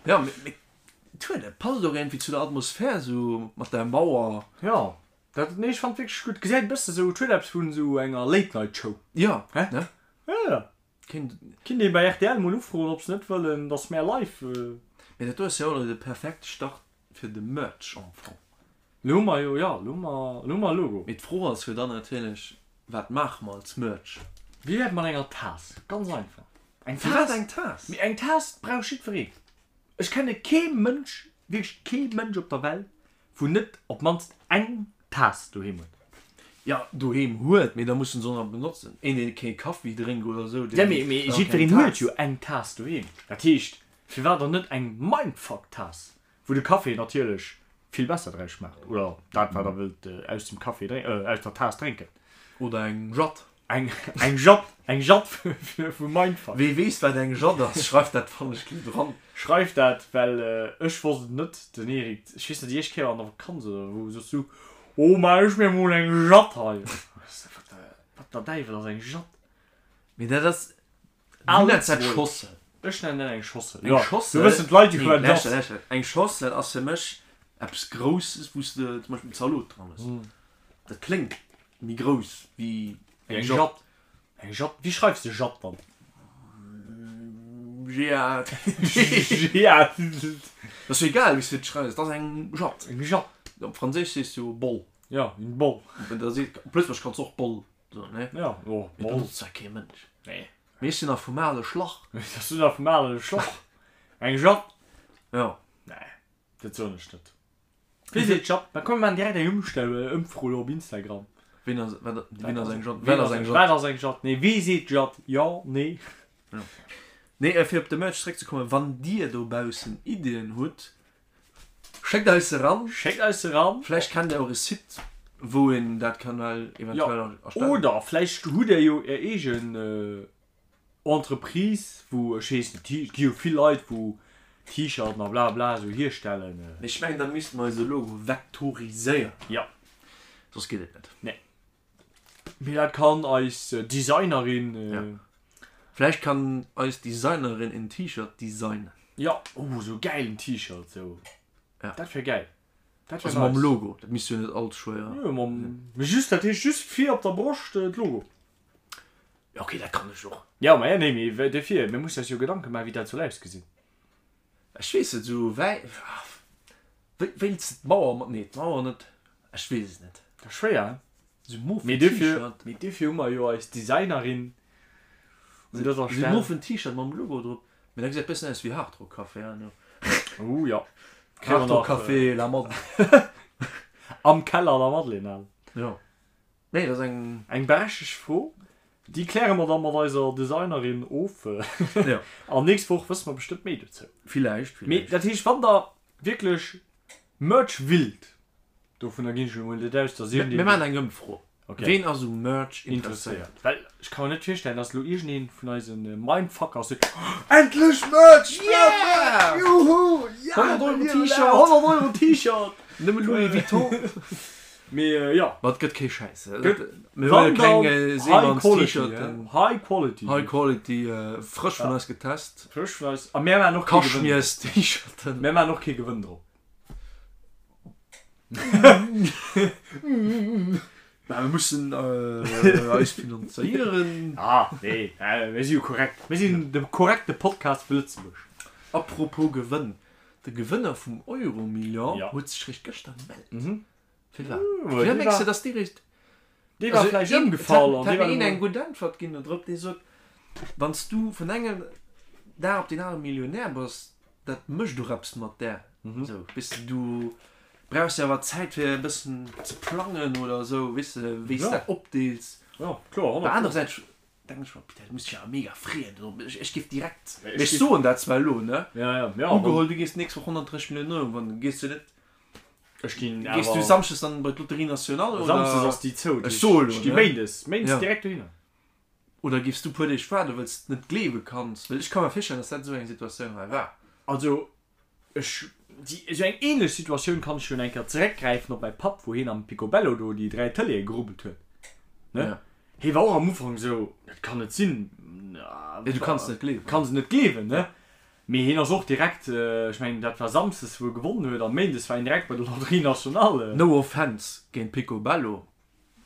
Jo, mee et huet eppes, passt och iergendwéi zu der Atmosphär esou mat der Mauer. Jo, dat, nee ech fannt wierklech gutt, gesäit e bësse sou, et huet eppes vun esou enger Late Night Show. Jo, ne? Jo, jo. Kéint. Kinnt ee bei rtl mol ufroen ob se net wëllen dass mär live. Mee dat do ass jo och de perfekte Start fir de Merch am Fong. Lo hu mer jo, jo, lo hu mer, lo hu mer e Logo. Mee d'Fro ass jo dann natierlech, wat maache mer als Merch? Wéi wär et mat enger Taass? Ganz einfach. Eng Taass. Firwat eng Taass? Mee eng Taass brauch jiddwereen. Ech kenne kee Mënsch, wierklech kee Mënsch op der Welt, wou net op d'mannst eng Taass doheem huet. Jo, doheem huet, mee da muss en se och nach benotzen. Een, deen kee Kaffi drénkt oder esou, deen. Ja, mee, mee jiddwereen huet jo eng Taass doheem. Dat heescht, firwat dann net eng Mindfuck-Taass, wou de Café natierlech vill besser draus schmaacht, oder dat, wat der wëllt aus dem Café drénken, aus der Taass drénken. Oder eng Jatt. Eng, eng Jatt, eng Jatt vu Mindfuck. Wee weess, wat eng Jatt ass, schreift dat wannechgelift dran. Schreift dat, well ech wosst et net. Den Eric, ech weess net, déi éischt Kéier an der Vakanz oder wou, soss du, Oh, maach ech mir mol eng Jatt hei. Wat der, wat der Däiwel ass eng Jatt? Mee dat ass, du nenns dat Schossel. Ech nennen dat eng Schossel, jo. Eng Schossel, do wëssen d'Leit jo, wat et ass. Nee, lauschter, eng Schossel ass fir mech eppes Grousses, wou s de zum Beispill Zalot dran hues. Dat kléngt Méi grouss wéi eng Jatt. Eng Jatt? Wéi schreifs de Jatt dann? J-A-T. J-A-T. Dat ass jo egal, wéi s de et schreifs, et ass eng Jatt. Eng Jatt. Op Franséisch sees du jo Boll. Ja, une Boll. Da seet, op Lëtzebuergesch kanns du och Boll soen, ne? Ja, jo, Boll. Mee benotzt zwar kee Mënsch. Nee. Mee ech sinn nach vum ale Schlach. Ech sinn nach vum ale Schlach. Eng Jatt? Jo. Nee, dat soen ech net. Wee seet Jatt? Da komm mir maachen direkt eng Ëmstell, Ëmfro lo op Instagram. Ween ass, wat, ween ass eng Jatt? Wat ass eng Jatt? Wat ass eng Jatt? Nee, wee seet Jatt? Jo, nee. Jo. Nee, fir op de Merch zeréckzekommen, wann dir dobaussen Iddien hutt, Schéckt eis se ran. Schéckt eis se ran. Vläicht kennt der och e Site, wou een dat kann well eventuell erstellen. Oder vläicht hutt der jo är eegen Entreprise, wou, ech weess net, et gi jo vill Leit, wou T-Shirten a bla bla esou hierstellen. Mee ech mengen, da misste mer eise Logo vektoriséieren. Jo. Soss geet et net. Nee. Mee dat kann eis Designerin. Ja. Vläicht kann eis Designerin en T-Shirt designen. Ja, oh sou gäilen T-Shirt sou. Ja. Dat wär gäil. Dat wär Also mam Logo, dat misst jo net all ze schwéier. Jo, mam, mee just, dat heescht just vir op der Broscht d'Logo. Ja okay, dat kann ech och. Ja, ma ja, nee, mee dofir, mir mussen eis jo Gedanke maachen, wéi dat soll ausgesinn. Ech weess net, sou wäi, wéi, wéilts de d'Mauer mat, nee d'Mauer net, ech weess et net. Dat ass schwéier, hein? Sou mofen Mee dofir, T-Shirt. mee dofir hu mer jo eis Designerin un dëser Sou Stell. mofen T-Shirt mam Logo drop, mee dat gesäit bëssen aus wéi Hard Rock Café, hein? Oh jo. Hard Rock Café La Madeleine. Am Keller La Madeleine, al. Jo. Nee, dat ass eng. Eng berechtegt Fro. Déi kläre mer da mat eiser Designerin of. Jo. An nächst Woch wësse mer bestëmmt méi dozou. Villäicht, villäicht. Mee dat heescht, wann der wierklech Merch willt, dovunner ginn ech elo mol net aus, dass iergendeen. Mir maachen eng Ëmfro. Okay. Ween ass u Merch interesséiert? Well ech ka mer net virstellen, dass elo iergendeen vun eise Mindfuckers seet, Endlech Merch! Yeah! Merch! Juhu! Ja! 100 Euro T-Shirt! 100 Euro T-Shirt! Nëmme Louis Vuitton! Mee jo. Ma et gëtt kee Schäiss. Mir huele keng Seemanns T-Shirten. High Quality. High Quality, frësch vun eis getest. Frësch vun eis. A mär maachen och kee Gewënn. Kaschmiers T-Shirten. Mär maachen och kee Gewënn drop. Mä mir mussen eis finanzéieren. Ah nee, mir si jo korrekt. Mir sinn de korrekte Podcast vu Lëtzebuerg. Apropos Gewënn, De Gewënner vum Euromillion huet sech réischt gëschter gemellt. Firwat? Firwat mengs de, dass dee réischt. Dee war vläicht ëmgefall an dee war. Et hat mir een eng gutt Äntwert ginn do drop, dee sot, Wann s du vun engem Dag op deen anere Millionär bass, dat mécht och eppes mat där. Esou, weess de, du brauchs jo awer Zäit fir e bëssen ze plangen oder esou, weess de, wéi s de dat opdeels. Jo, kloer, 100 Pro. Anerersäits Denken ech mer, putain, du muss dech awer mega freeën. Ech géif direkt, mee ech soen dat zwar elo, ne? Ja, ja, ja. Ugeholl, du gees d'nächst Woch 130 Milliounen Euro gewannen, gees du net, Ech ginn awer. Gees du Samschdes dann bei d'Loterie Nationale oder? Samschdes ass déi zou. Ech soe elo, ne? Ech gi Méindes, Méindes direkt dohinner. Oder géifs du puer Deeg waarden, well s de net gleewe kanns? Well ech ka mer virstellen, dass dat esou eng Situatioun hei war. Also, Ech, déi, esou eng ähnlech Situatioun kann ech jo eng Kéier zeréckgräifen op mäi Papp, wou hien am Picobello do déi 3 Tëleeë gerubbelt huet, ne? Ja. Hie war och am Ufank esou, dat kann net sinn, Ja, du kanns net gleewen. Kanns et net gleewen, ne? Mee hien ass och direkt, ech mengen dat war Samsdes wou e gewonnen huet, an Méindes war hien direkt bei der Loterie Nationale. No offense géint Picobello,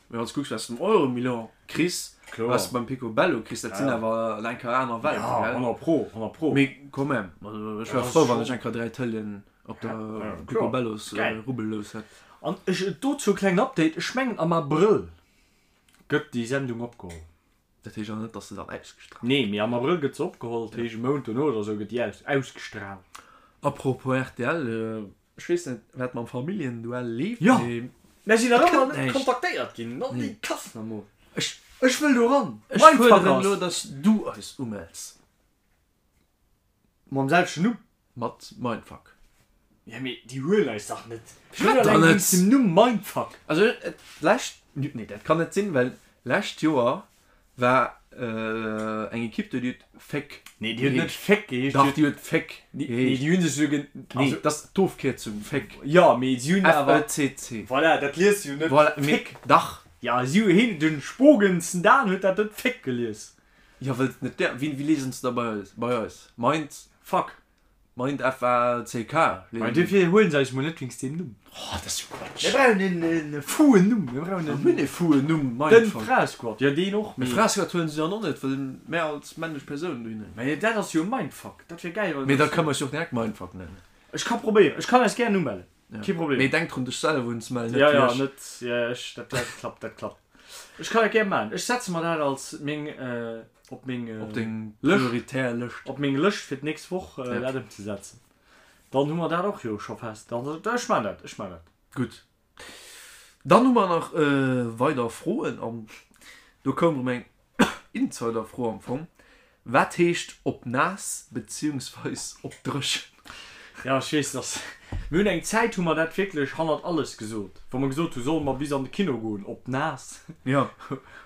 Mee wann s kucks wat s de um Euromillion kriss, wat s de beim Picobello kriss, dat sinn awer eng Kéier aner Welten, gell? Ja, 100 pro, 100 pro. Mee quand même, also ech wär frou, wann ech eng Kéier 3 Tëleeën op der Picobellos Rubbellous hätt. An ech, dozou e klengen Update, ech mengen am Abrëll gëtt déi Sendung opgeholl. Dat heescht awer net, dass se dann ausgestraalt Nee, mee am Abrëll gëtt se opgeholl, dat heescht e Mount dono oder sou gëtt déi ausgestraalt. Apropos rtl, Ech weess net wat mam Familljenduell leeft, Jo, mee mär sinn nach ëmmer net kontaktéiert ginn. Not déi Kass nach mol. Ech Ech wëll do ran. Ech fuerderen elo, dass du eis umells. Mam selwechten Numm? Mat Mindfuck. Ja mee déi huelen eis dach net. Firwat dann net? Wéinst dem Numm Mindfuck. Also d'lescht, nee dat kann net sinn, well lescht Joer War eng Equipe do, déi huet Féck Nee, déi huet net Féck geheescht. Dach, déi huet Féck geheescht. Nee, déi hunn sech esou gen. Nee, dat ass d'Ofkierzung, Féck. Jo, mee si hunn awer. F-E-C-C. Voilà, dat liest du jo net Voilà, mee Féck. Dach. Ja, si hu heen, de Spogensen Dan huet dat net Féck gelies. Jo, well et net där. Wéi liesen se da bei eis? Bei eis? Mind. Fuck. Mind F-A-C-K. Mä duerfir huelen se eis mol net wéinst deem Numm. Oh, dat ass jo Quatsch. Mir brauchen en fou'en Numm. Mir brauchen en. Mir hunn e fou'en Numm, Mindfuck. Den Fraesquad, jo deen och, mee. Fraesquad huelen se dann och net, well mär als männlech Persoun dohinner ginn. Mä dat ass jo Mindfuck. Dat wier gäil, wann. Mee da kënne mer eis jo och direkt Mindfuck nennen. Ech ka probéieren. Ech kann eis gären umellen. Kee Problem. Mee denk drun, dech selwer unzemellen, net déi. Jo, jo, net, jo, ech, dat, dat klappt, dat klappt. Ech kann dat gär maachen. Ech setze mer dat als meng. Op meng Op deng Lëscht. prioritär Lëscht. Op meng Lëscht fir d'nächst Woch dat ëmzesetzen. Dann hu mer dat och jo scho fest. Dann, ech maan dat, ech maan dat. Gutt. Dann hu mer nach weider Froen an do koum erëm eng Insider-Fro am Fong, Wat heescht op naass beziehungsweis op dréchen? Ja, ech weess, dass mir hunn eng Zäit hu mer dat wierklech hannert alles gesot, wa mer gesot hu solle mer bis an de Kino goen op naass Ja.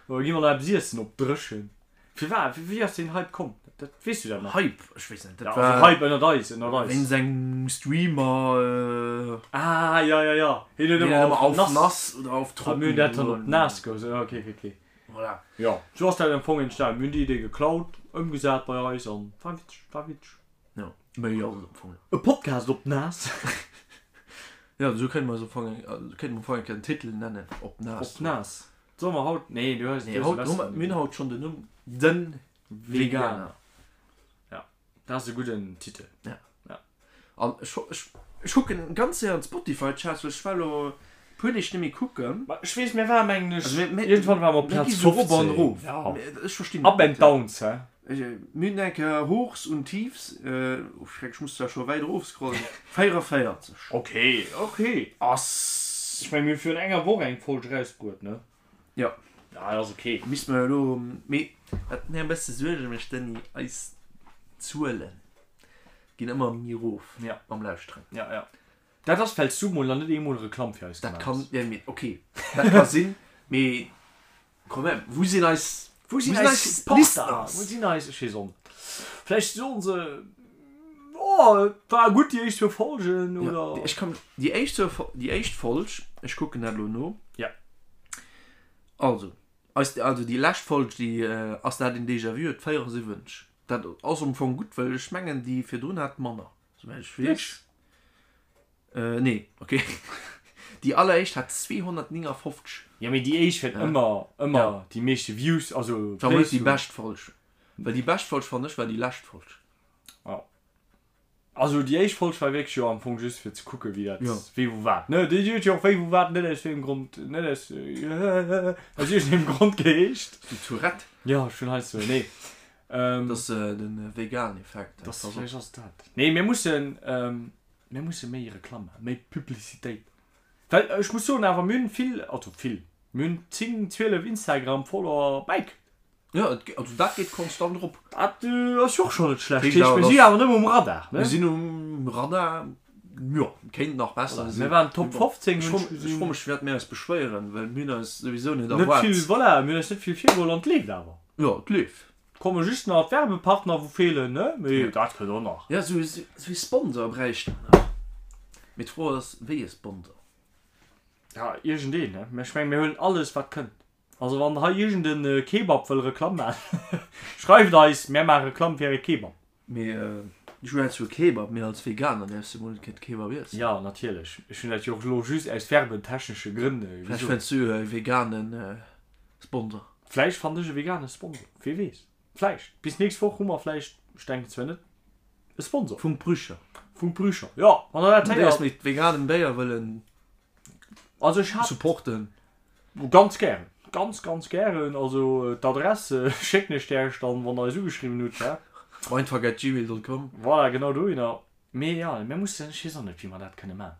oder gi mer nach eppes iessen op dréchen. Firwat, wéi ass deen Hype komm? Dat, weess du dat nach? Hype, ech weess net, dat Ja, war also Hype ënnert eis, ënnert eis. wéinst engem Streamer. Ah, ja, ja, ja, hien huet Deen ëmmer ëmmer auf nass nass oder auf A trocken mir hunn dat dann op gesot. naass gesot, ja, okay, okay, okay. Voilà. Jo, sou ass dat am Fong entstanen. Mir hunn déi Idee geklaut, ëmgesat bei eis an war witzeg, war witzeg. Jo, méi ass et am Fong net. E Podcast op naass. Jo, esou kéinte mer eis am Fong, kéinte mer am Fong eng Kéier den Titel nennen, Op naass. Op naass. Solle mer haut, nee, du hues, Nee, du hues haut e hu mer, besseren mir hunn haut schonn den Numm Den Veganer. Ja, dat ass e gudden Titel. Ja. Ja. An ech, ech, ech kucken ganz séier an d'Spotify-Charts, well ech war elo e puer Deeg net méi kucken. Ma ech weess, mir waren, mengen ech, Also mir, mir, iergendwann ware mer op mir gi Plaz sou rop an 15. erof. Ja. Mir, ech verstinn Up dat and net. downs, hä? Ech, mir hunn eng Kéier Hochs und Tiefs, oh Schreck, ech muss zwar scho wäit erofscrollen, 44. Okay, okay. Ass. Ech mengen, mir hu virun enger Woch eng Folg erausbruet, ne? Jo. Ja, dat ass okay. Misst mer elo, mee wat mir e bësse Suerge mécht, Denis, eis Zuele ginn ëmmer méi erof Ja. mam Lauschteren. Ja, ja. Dat ass, well s du mol nach net eemol Reklamm fir eis Dat gemaach kann, hues. ja, mee okay, dat ka sinn, mee quand même, wou sinn eis, Wou sinn eis Supporter? Wou sinn eis, ech weess och net. Vläicht soen se, oh, et war gutt déi éischt zwou Folgen, oder? Ja, ech kann, déi éischt zwou, déi éischt Folg, ech kucken dat elo no. Ja. Also, eis, also déi lescht Folg, déi ass dat een Déjà-vu, huet 74. Dat ass am Fong gutt, well ech mengen déi virdrun hat manner, souwäit ech weess. Äh, nee, okay. Déi alleréischt hat 259. Jo, mee déi éischt huet ëmmer, ëmmer déi meeschte Views, also War mol Plays. net déi bescht Folg. Well déi bescht Folg, fannen ech, war déi lescht Folg. Jo. Also déi éischt Folg war wierklech jo am Fong just fir ze kucke wéi dat, Jo. wéi wou wat, ne? Déi huet jo och wéi wou wat net aus wéiengem Grond, net aus, aus iergendengem Grond geheescht. Du Tourette. Jo, ech hunn heiansdo, nee. Dat ass de Vegan-Effekt. Das, vläicht ass et dat. Nee, mir mussen, Mir musse méi Reklamm maachen, méi Publicitéit. Well ech muss soen awer, mir hunn vill, also vill, mir hunn 10, 12 Instagram-Follower bäikritt. Jo, et, also dat geet konstant erop. Dat ass jo och schonn net schlecht. Heescht Heescht, awer, mir si dass. awer nëmme um Radar, ne? Mir sinn um Radar, jo, kéint nach besser Voilà, sinn. mir waren Top 15, Ech hunn fro, ech ech gesinn. fro mech, firwat mir eis beschwéieren, well mir hunn eis souwisou net Net erwaart. vill, voilà, mir hunn eis net vill virgeholl an et leeft awer. Jo, et leeft. Komme just nach d'Werbepartner wou feelen ne, mee dat kënnt och nach. Jo sou ee Sponsor bräicht mer nach. Mee d'Fro ass wéi e Sponsor? Ja iergendeen ne, mä ech mengen mir huelen alles wat kënnt. Also wann hei iergend en Kebab wëll Reklamm maachen, schreift eis, mär maache Reklamm fir äre Kebab. Mee ech hunn zwar Kebab, mee als Veganer däerfs de mol net keen Kebab iessen. Jo natierlech, ech hunn dat jo och elo just aus werbentechnesche Grënn Vläicht gesot. fënns du e veganen Sponsor. Vläicht fannt ech e vegane Sponsor, wee weess. Vläicht. Bis nächst Woch hu mer vläicht, ech denken zwar net, e Sponsor. Vum Brücher. Vum Brücher, jo, wann der dat Wann déi eis héiert. mat veganem Béier wëllen Also ech hat. supporten. Ganz gären, ganz, ganz gären. Also d'Adress schécken ech Äech dann, wann der eis ugeschriwwen hutt, hä? Mindfuck@gmail.com. Voilà, genau dohinner. Mee jo, mir mussen, ech weess och net, wéi mer dat kënne maachen.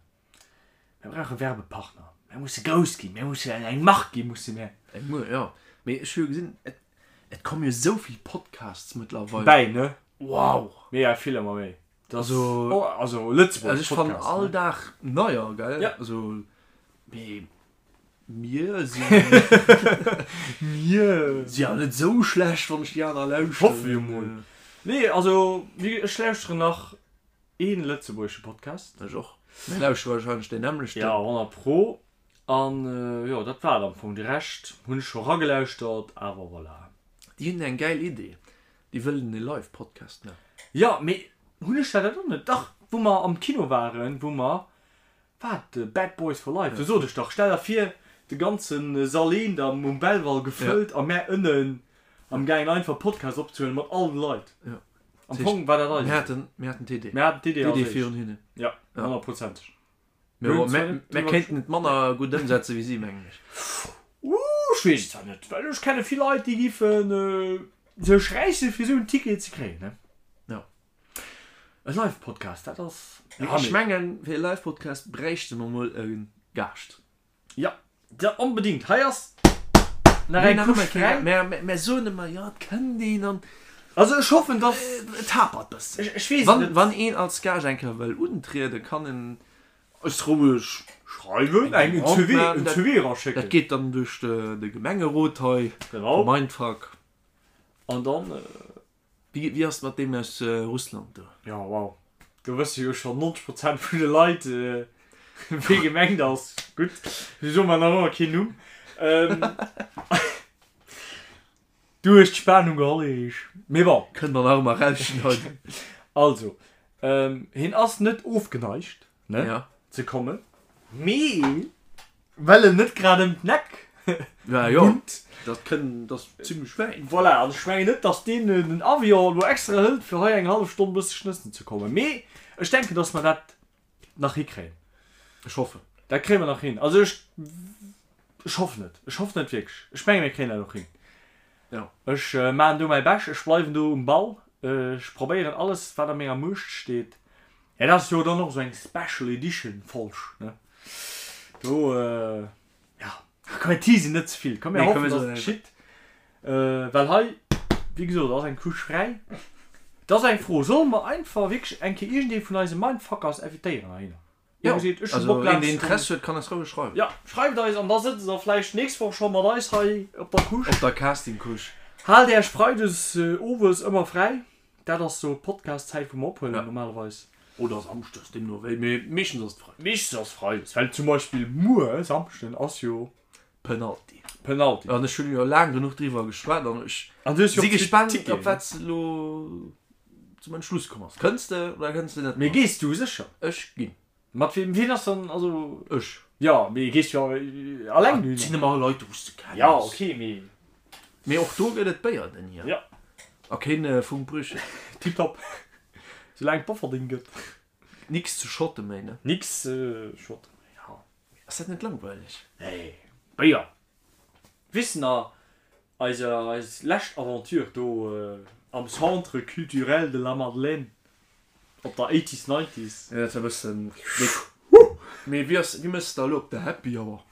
Mir brauche Werbepartner. Mir musse grouss ginn. Mir musse eng Mark ginn, musse mir. Eng Muer, jo. Mee ech hu jo gesinn, et, et komme jo esou vill Podcasts mëttlerweil. Bäi, ne? Wow! Mega vill, ëmmer méi. Dat ass, Also, oh, also Lëtzebuerg also ech fannen Podcasts, all ne? Dag neier, gell? Ja. Also, mee mir sinn. Mir. Si jo net esou schlecht, wann ech déi aner lauschteren. Hoffe jo mol. Nee, also, wéi, ech lauschteren nach Een lëtzebuergesche Podcast. Ech och. Mir lauschtere wahrscheinlech deen nämmlechten. Ja, 100 pro. An jo, dat war et am Fong. De Rescht hunn ech scho ragelauschtert, awer voilà. Déi hunn eng gäil Idee. Déi wëllen e Live Podcast maachen. Jo, mee hunn ech dat och net? Dach, wou mer am Kino waren, wou mer, wat, Bad Boys for Life, do sot ech dach, stell der vir, de ganze Sall eent am um Belval gefëllt a mär ënnen am gaangen einfach Podcast opzehuelen mat all de Leit. Jo. Am Fong war dat eis Mir Idee. haten, mir haten d'Idee. Mir haten d'Idee als D'Idee éischt. virun hinnen. Ja, Ja. honnertprozenteg. Mir, Mir hunn mir, zwar net mir drüber kéinten et manner gutt ëmsetzen wéi si, mengen ech. Uh, ech weess et zwar net, well ech kenne vill Leit, déi giffen. Sech räisse fir esou en Ticket ze kréien, ne? Ja. E Live-Podcast, dat ass. Mee ech mengen, fir e Live-Podcast bräichte mer mol e Gaascht. Ja, ja onbedingt. Hei ass nach eng Couche fräi. Mä mär soen ëmmer, jo, et kënnt een an. Also ech hoffen, dass. Et hapert bëssen. Ech weess et net. Wann een als Gaascht eng Kéier wëll untrieden, kann en eis roueg schreiwen, eng CV, en CV eraschécken. Dat geet dann duerch de Gemengerot hei, Genau. Mindfuck. An dann. Wéi, wéi ass et mat deem aus Russland do? Jo, wow. Do wësse jo schonn 90 Prozent vun de Leit, wee gemengt ass. Gutt, ech soe mer nach ëmmer keen Numm. Du hues d'Spanung geholl, Erich. Mee bon. Kënnt mer nach ëmmer rausschneiden. Also, hien ass net ofgeneigt, ne, Ja. ze kommen, mee well en net grad ëm d'Neck Ja, jo, wunnt. dat kënn, dat ass zimlech wäit. Voilà, an ech mengen net, dass deen den Avion elo extra hëlt, fir hei eng hallef Stonn e bësse schnëssen ze kommen. Mee ech denken, dass mer dat nach hikréien. Ech hoffen. Dat kréie mer nach hin. Also ech, ech hoffen et. Ech hoffen et wierklech. Ech menge mir kréien dat och hin. Ja. Ech maachen do mäi Bescht. Ech bleiwen do um Ball. Ech probéieren alles, wat a menger Muecht steet. Ja, dat ass jo dann och esou eng Special Edition Folg, ne? Do, ja, komm mir teasen net ze vill. Komm mir hoffen, dass et geschitt. Well hei, wéi gesot, ass eng Couche fräi. Et ass eng Fro, Solle mer einfach wierklech eng Kéier iergendee vun eise Mindfuckers invitéieren heihinner? Jo, also een deen Interesse huet kann eis roueg schreiwen. Jo, schreift eis an da sëtzt der vläicht nächst Woch scho mat eis hei op der Couche. Op der Casting-Couche. Haalt Äech Freides owes ëmmer fräi, dat ass sou d'Podcast-Zäit wou mer ophuelen normalerweis. Oder Samschdes, deemno wéi, mee meeschtens ass et Freides. Meeschtens ass Freides, well zum Beispill muer Samschden ass jo. Penalty. Penalty. An ech hunn jo laang genuch driwwer geschwat an ech si gespaant op wat s de elo zum Entschluss komm ass. Kënns de oder kënns de net mat? Mee gees du sécher? Ech ginn. Mat wiem? Wien ass dann, also. Ech. Jo, mee gees jo alleng dohinner? Et sinn ëmmer Leit wou s de kenns. Jo, ok, mee. Mee och do gëtt et Béier den hier. Jo. A keen Funkbrüche. Tiptop. Soulaang et Bofferding gëtt. Nix ze schotte méi, ne? Nix ze schotte méi, jo. Ass dat net langweileg? Nee, Béier. Weess de nach, eise, eis lescht Aventure do am Centre Culturel de la Madeleine op der Eighties Nineties? Jo, dat war e bëssen déck. Mee wéi ass, wéi mëss de da elo op der Happy Hour?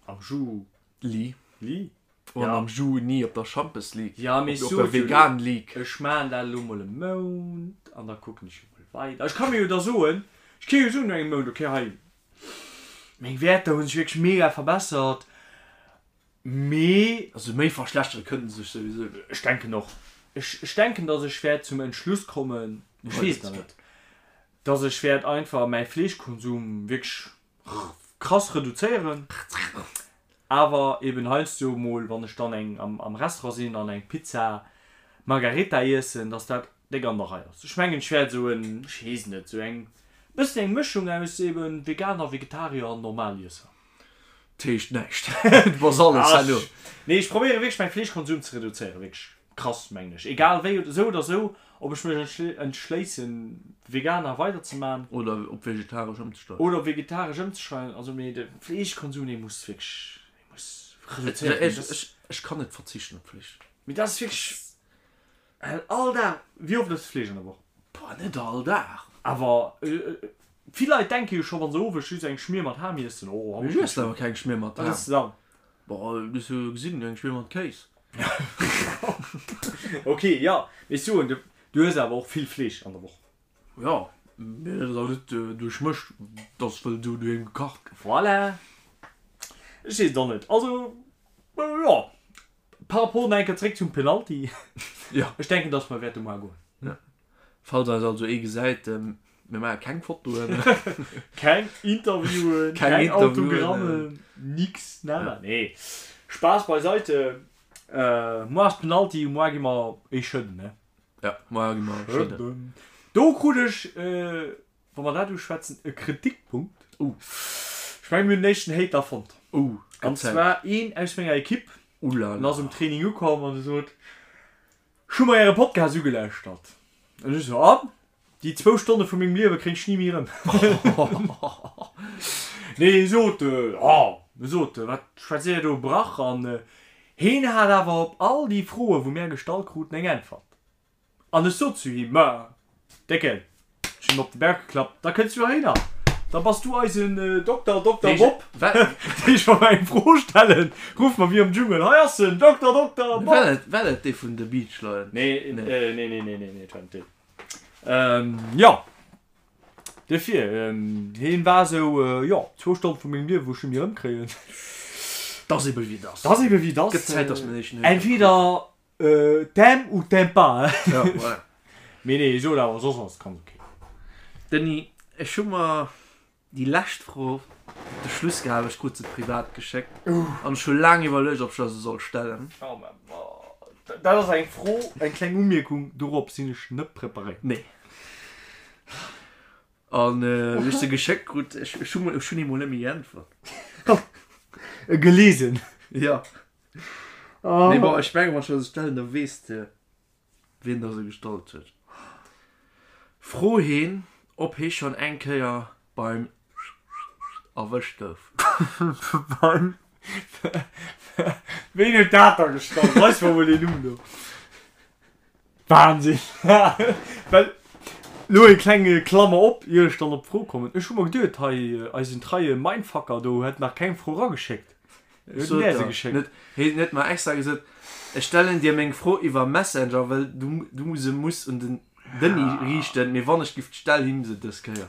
Am Ju. Li. Li. An am Juni op der Schampes League. Ja, mee op der Vegan League. Ech maan dat elo mol e Mount an da kucken ech jo mol weider. Ech ka mir jo da soen, ech ka jo soen no engem Mount, okay hei meng Wäerter hu sech wierklech mega verbessert, mee. Also méi verschlechtere kënne se sech souwisou net. Ech denken och. Ech ech denken, dass ech wäert zum Entschluss kommen, ech weess et nach net, dass ech wäert einfach mäi Fleeschkonsum wierklech krass reduzéieren, awer eben heiansdo mol wann ech dann eng am Restaurant sinn an eng Pizza Margarita iessen, dass dat déck an der Rei ass. Ech mengen ech wäert esou en, ech weess net, esou eng bëssen eng Mëschung aus eben Veganer, Vegetarier an Normaliesser. Dat heescht näischt, du bass alles herno. Nee ech probéiere wierklech mäi Fleeschkonsum ze reduzéieren, wierklech. Krass, mengen ech. Egal wéi, esou oder esou, ob ech mech entschléissen Veganer weider ze man. Oder op vegetaresch ëmzesteigen. Oder op vegetaresch ëmzesteigen. Also mee de Fleeschkonsum dee muss wierklech, dee muss reduzéiert ginn. Ech, ech kann net verzichten op Fleesch. Mee dat ass wierklech all Dag. Wéi oft ëss de Fleesch an der Woch? Boah, net all Dag. Awer vill Leit denke jo scho wann se owes just eng Schmier mat Ham iessen, oh haut. Ech iessen awer keng Schmier mat Ham. Wat ëss de dann? Boah, du hues jo gesinn, eng Schmier mat Kéis. Ok, jo, mee ech soen, du hues awer och vill Fleesch an der Woch. Jo, mee dat ass awer net duerch mech, dat ass well do doheem gekacht gëtt. Voilà. Ech weess et och net. Also, jo, par rapport nach eng Kéier zréck zum Penalty. Jo. Ech denken, dass mer wäerte moar goen. Jo. Falls eis also ee gesäit, mir maache keng Fotoen. Keng Interviewen, keng Autogrammen, nix, nada. Nee, Spaass beiseite. Moar ass Penalty, moar gi mer ee schëdden, ne? Ja, moar gi mer schëdden. Do krut ech, wa mer dat uschwätzen, e Kritikpunkt. Oh. Ech mengen, mir hunn den éischten Hater fonnt. Oh, An zwar een aus menger Ekipp. Oulala. En ass um Training ukomm an e sot, Ech hu mer äre Podcast ugelauschtert. An ech esou, an? Déi zwou Stonne vu mengem Liewe kréien ech ni méi erëm. Nee, hie sot, oh, e sot, wat schwätzt dir do Brach? An. Heen hat awer op all déi Froe wou mär gestallt kruten eng Äntwert. An ech sot zu him, Ma, Décken, ech hunn him op de Bauch geklappt, da kënns du heihinner, da bass du eisen Dokter, Dokter Bob. Deeg, wa mer eng Fro stellen, ruffe mer wéi am Dschungel, Hei ass en, Dokter, Dokter Bob! War dat dee vun de Beach Lions? Nee, nee, nee, nee, nee, nee, et war net deen. Jo, duerfir, hien war esou, jo, zwou Stonn vu mengem Liewen, wou ech net méi erëmkréien. 't ass ebe wéi 't ass. 't ass ebe wéi 't ass. Gëtt Zäit, dass mer éischen Entweder T'aimes ou t'aimes pas, hein. Ja, voilà. Mee nee, ech sot awer, soss ass et ganz ok. Denis, ech hu mer déi lescht Fro op de Schluss gehal, ech krut se privat geschéckt an ech hu laang iwwerluecht, ob ech der se soll stellen. Oh mä dat ass eng Fro, eng kleng Umierkung, dorop sinn ech net preparéiert. Nee. An wéi ech se geschéckt krut, ech hu ech hunn emol net méi geäntwert. Gelesen. Ja. Mee bon, ech mengen, wann ech der se stellen, da weess de, wien der se gestallt huet. Fro heen, ob hee schonn eng Kéier beim erwëscht gouf. Beim Ween huet dat da gestallt? Weis mer mol deen Numm do. Wahnsinn! Well, lo eng kleng Klammer op, ier ech dann op d'Fro kommen, Ech hu mer geduet, hei eisen treie Mindfucker do hätt nach keng Fro erageschéckt. Wéi huet en där se geschéckt? Hien huet mer extra gesot, Ech stellen dir meng Fro iwwer Messenger, well du se muss un den Denis riichten, mee wann ech giff, stell him se dës Kéier.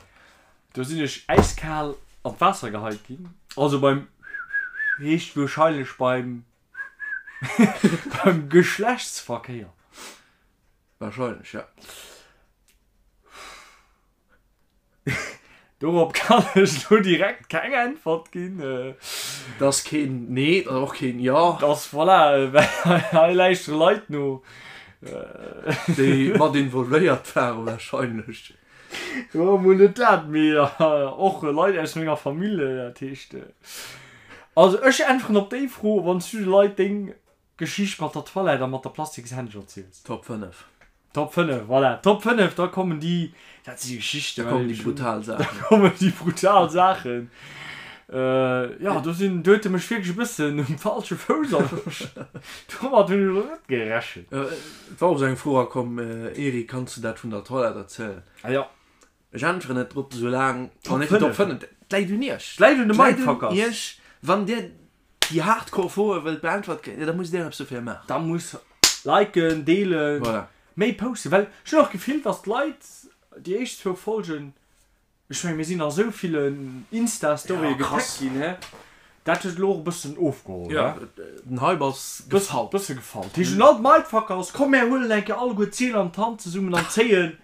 Do sinn ech äiskal an d'Waasser geheit ginn. Also beim heescht wuerscheinlech beim Beim Geschlechtsverkéier. Wahrscheinlech, ja. Dorop kann ech lo direkt keng Äntwert ginn. Dat ass keen Nee, dat ass och keen Jo. Dat ass, voilà, well hei lauschtere Leit no. Déi mat involvéiert waren wahrscheinlech. Jo, mol net dat, mee och Leit aus menger Famill, dat heescht. Also ech äntweren op déi Fro, wann s du de Leit deng Geschicht mat der Toilette a mat der Plastikshändsch erziels. Top 5. Top 5, voilà. Top 5, da kommen déi, dat si Geschichten. Da kommen déi brutal Saachen. Da kommen déi brutal Saachen. Jo, do sinn, do huet e mech wierklech e bëssen um falsche Fouss erwëscht. Domat hunn ech elo net gerechent. Et war och esou eng Fro erakomm, Eric, kanns du dat vun der Toilette erzielen? Ah jo. Ech äntweren net drop, soulaang mer net déi Top 5. Et läit un iech. Et läit un de Mindfuckers. Et läit un iech. Wann dir déi hardcore Froe wëllt beäntwert kréien, da musst dir eppes dofir maachen. Da muss liken, deelen, Voilà. méi posten. Well ech hunn och d'Gefill, dass d'Leit déi éischt zwou Folgen Ech mengen mir sinn a sou villen Insta-Storye getaggt ginn, he? Dat huet elo och e bëssen ofgeholl, he? Jo, den Hype ass gefall. Bësse gefall. Dat heescht un all d'Mindfuckers, komm mär huelen eng Kéier alleguer d'Zeel an d'Hand zesummen an zéien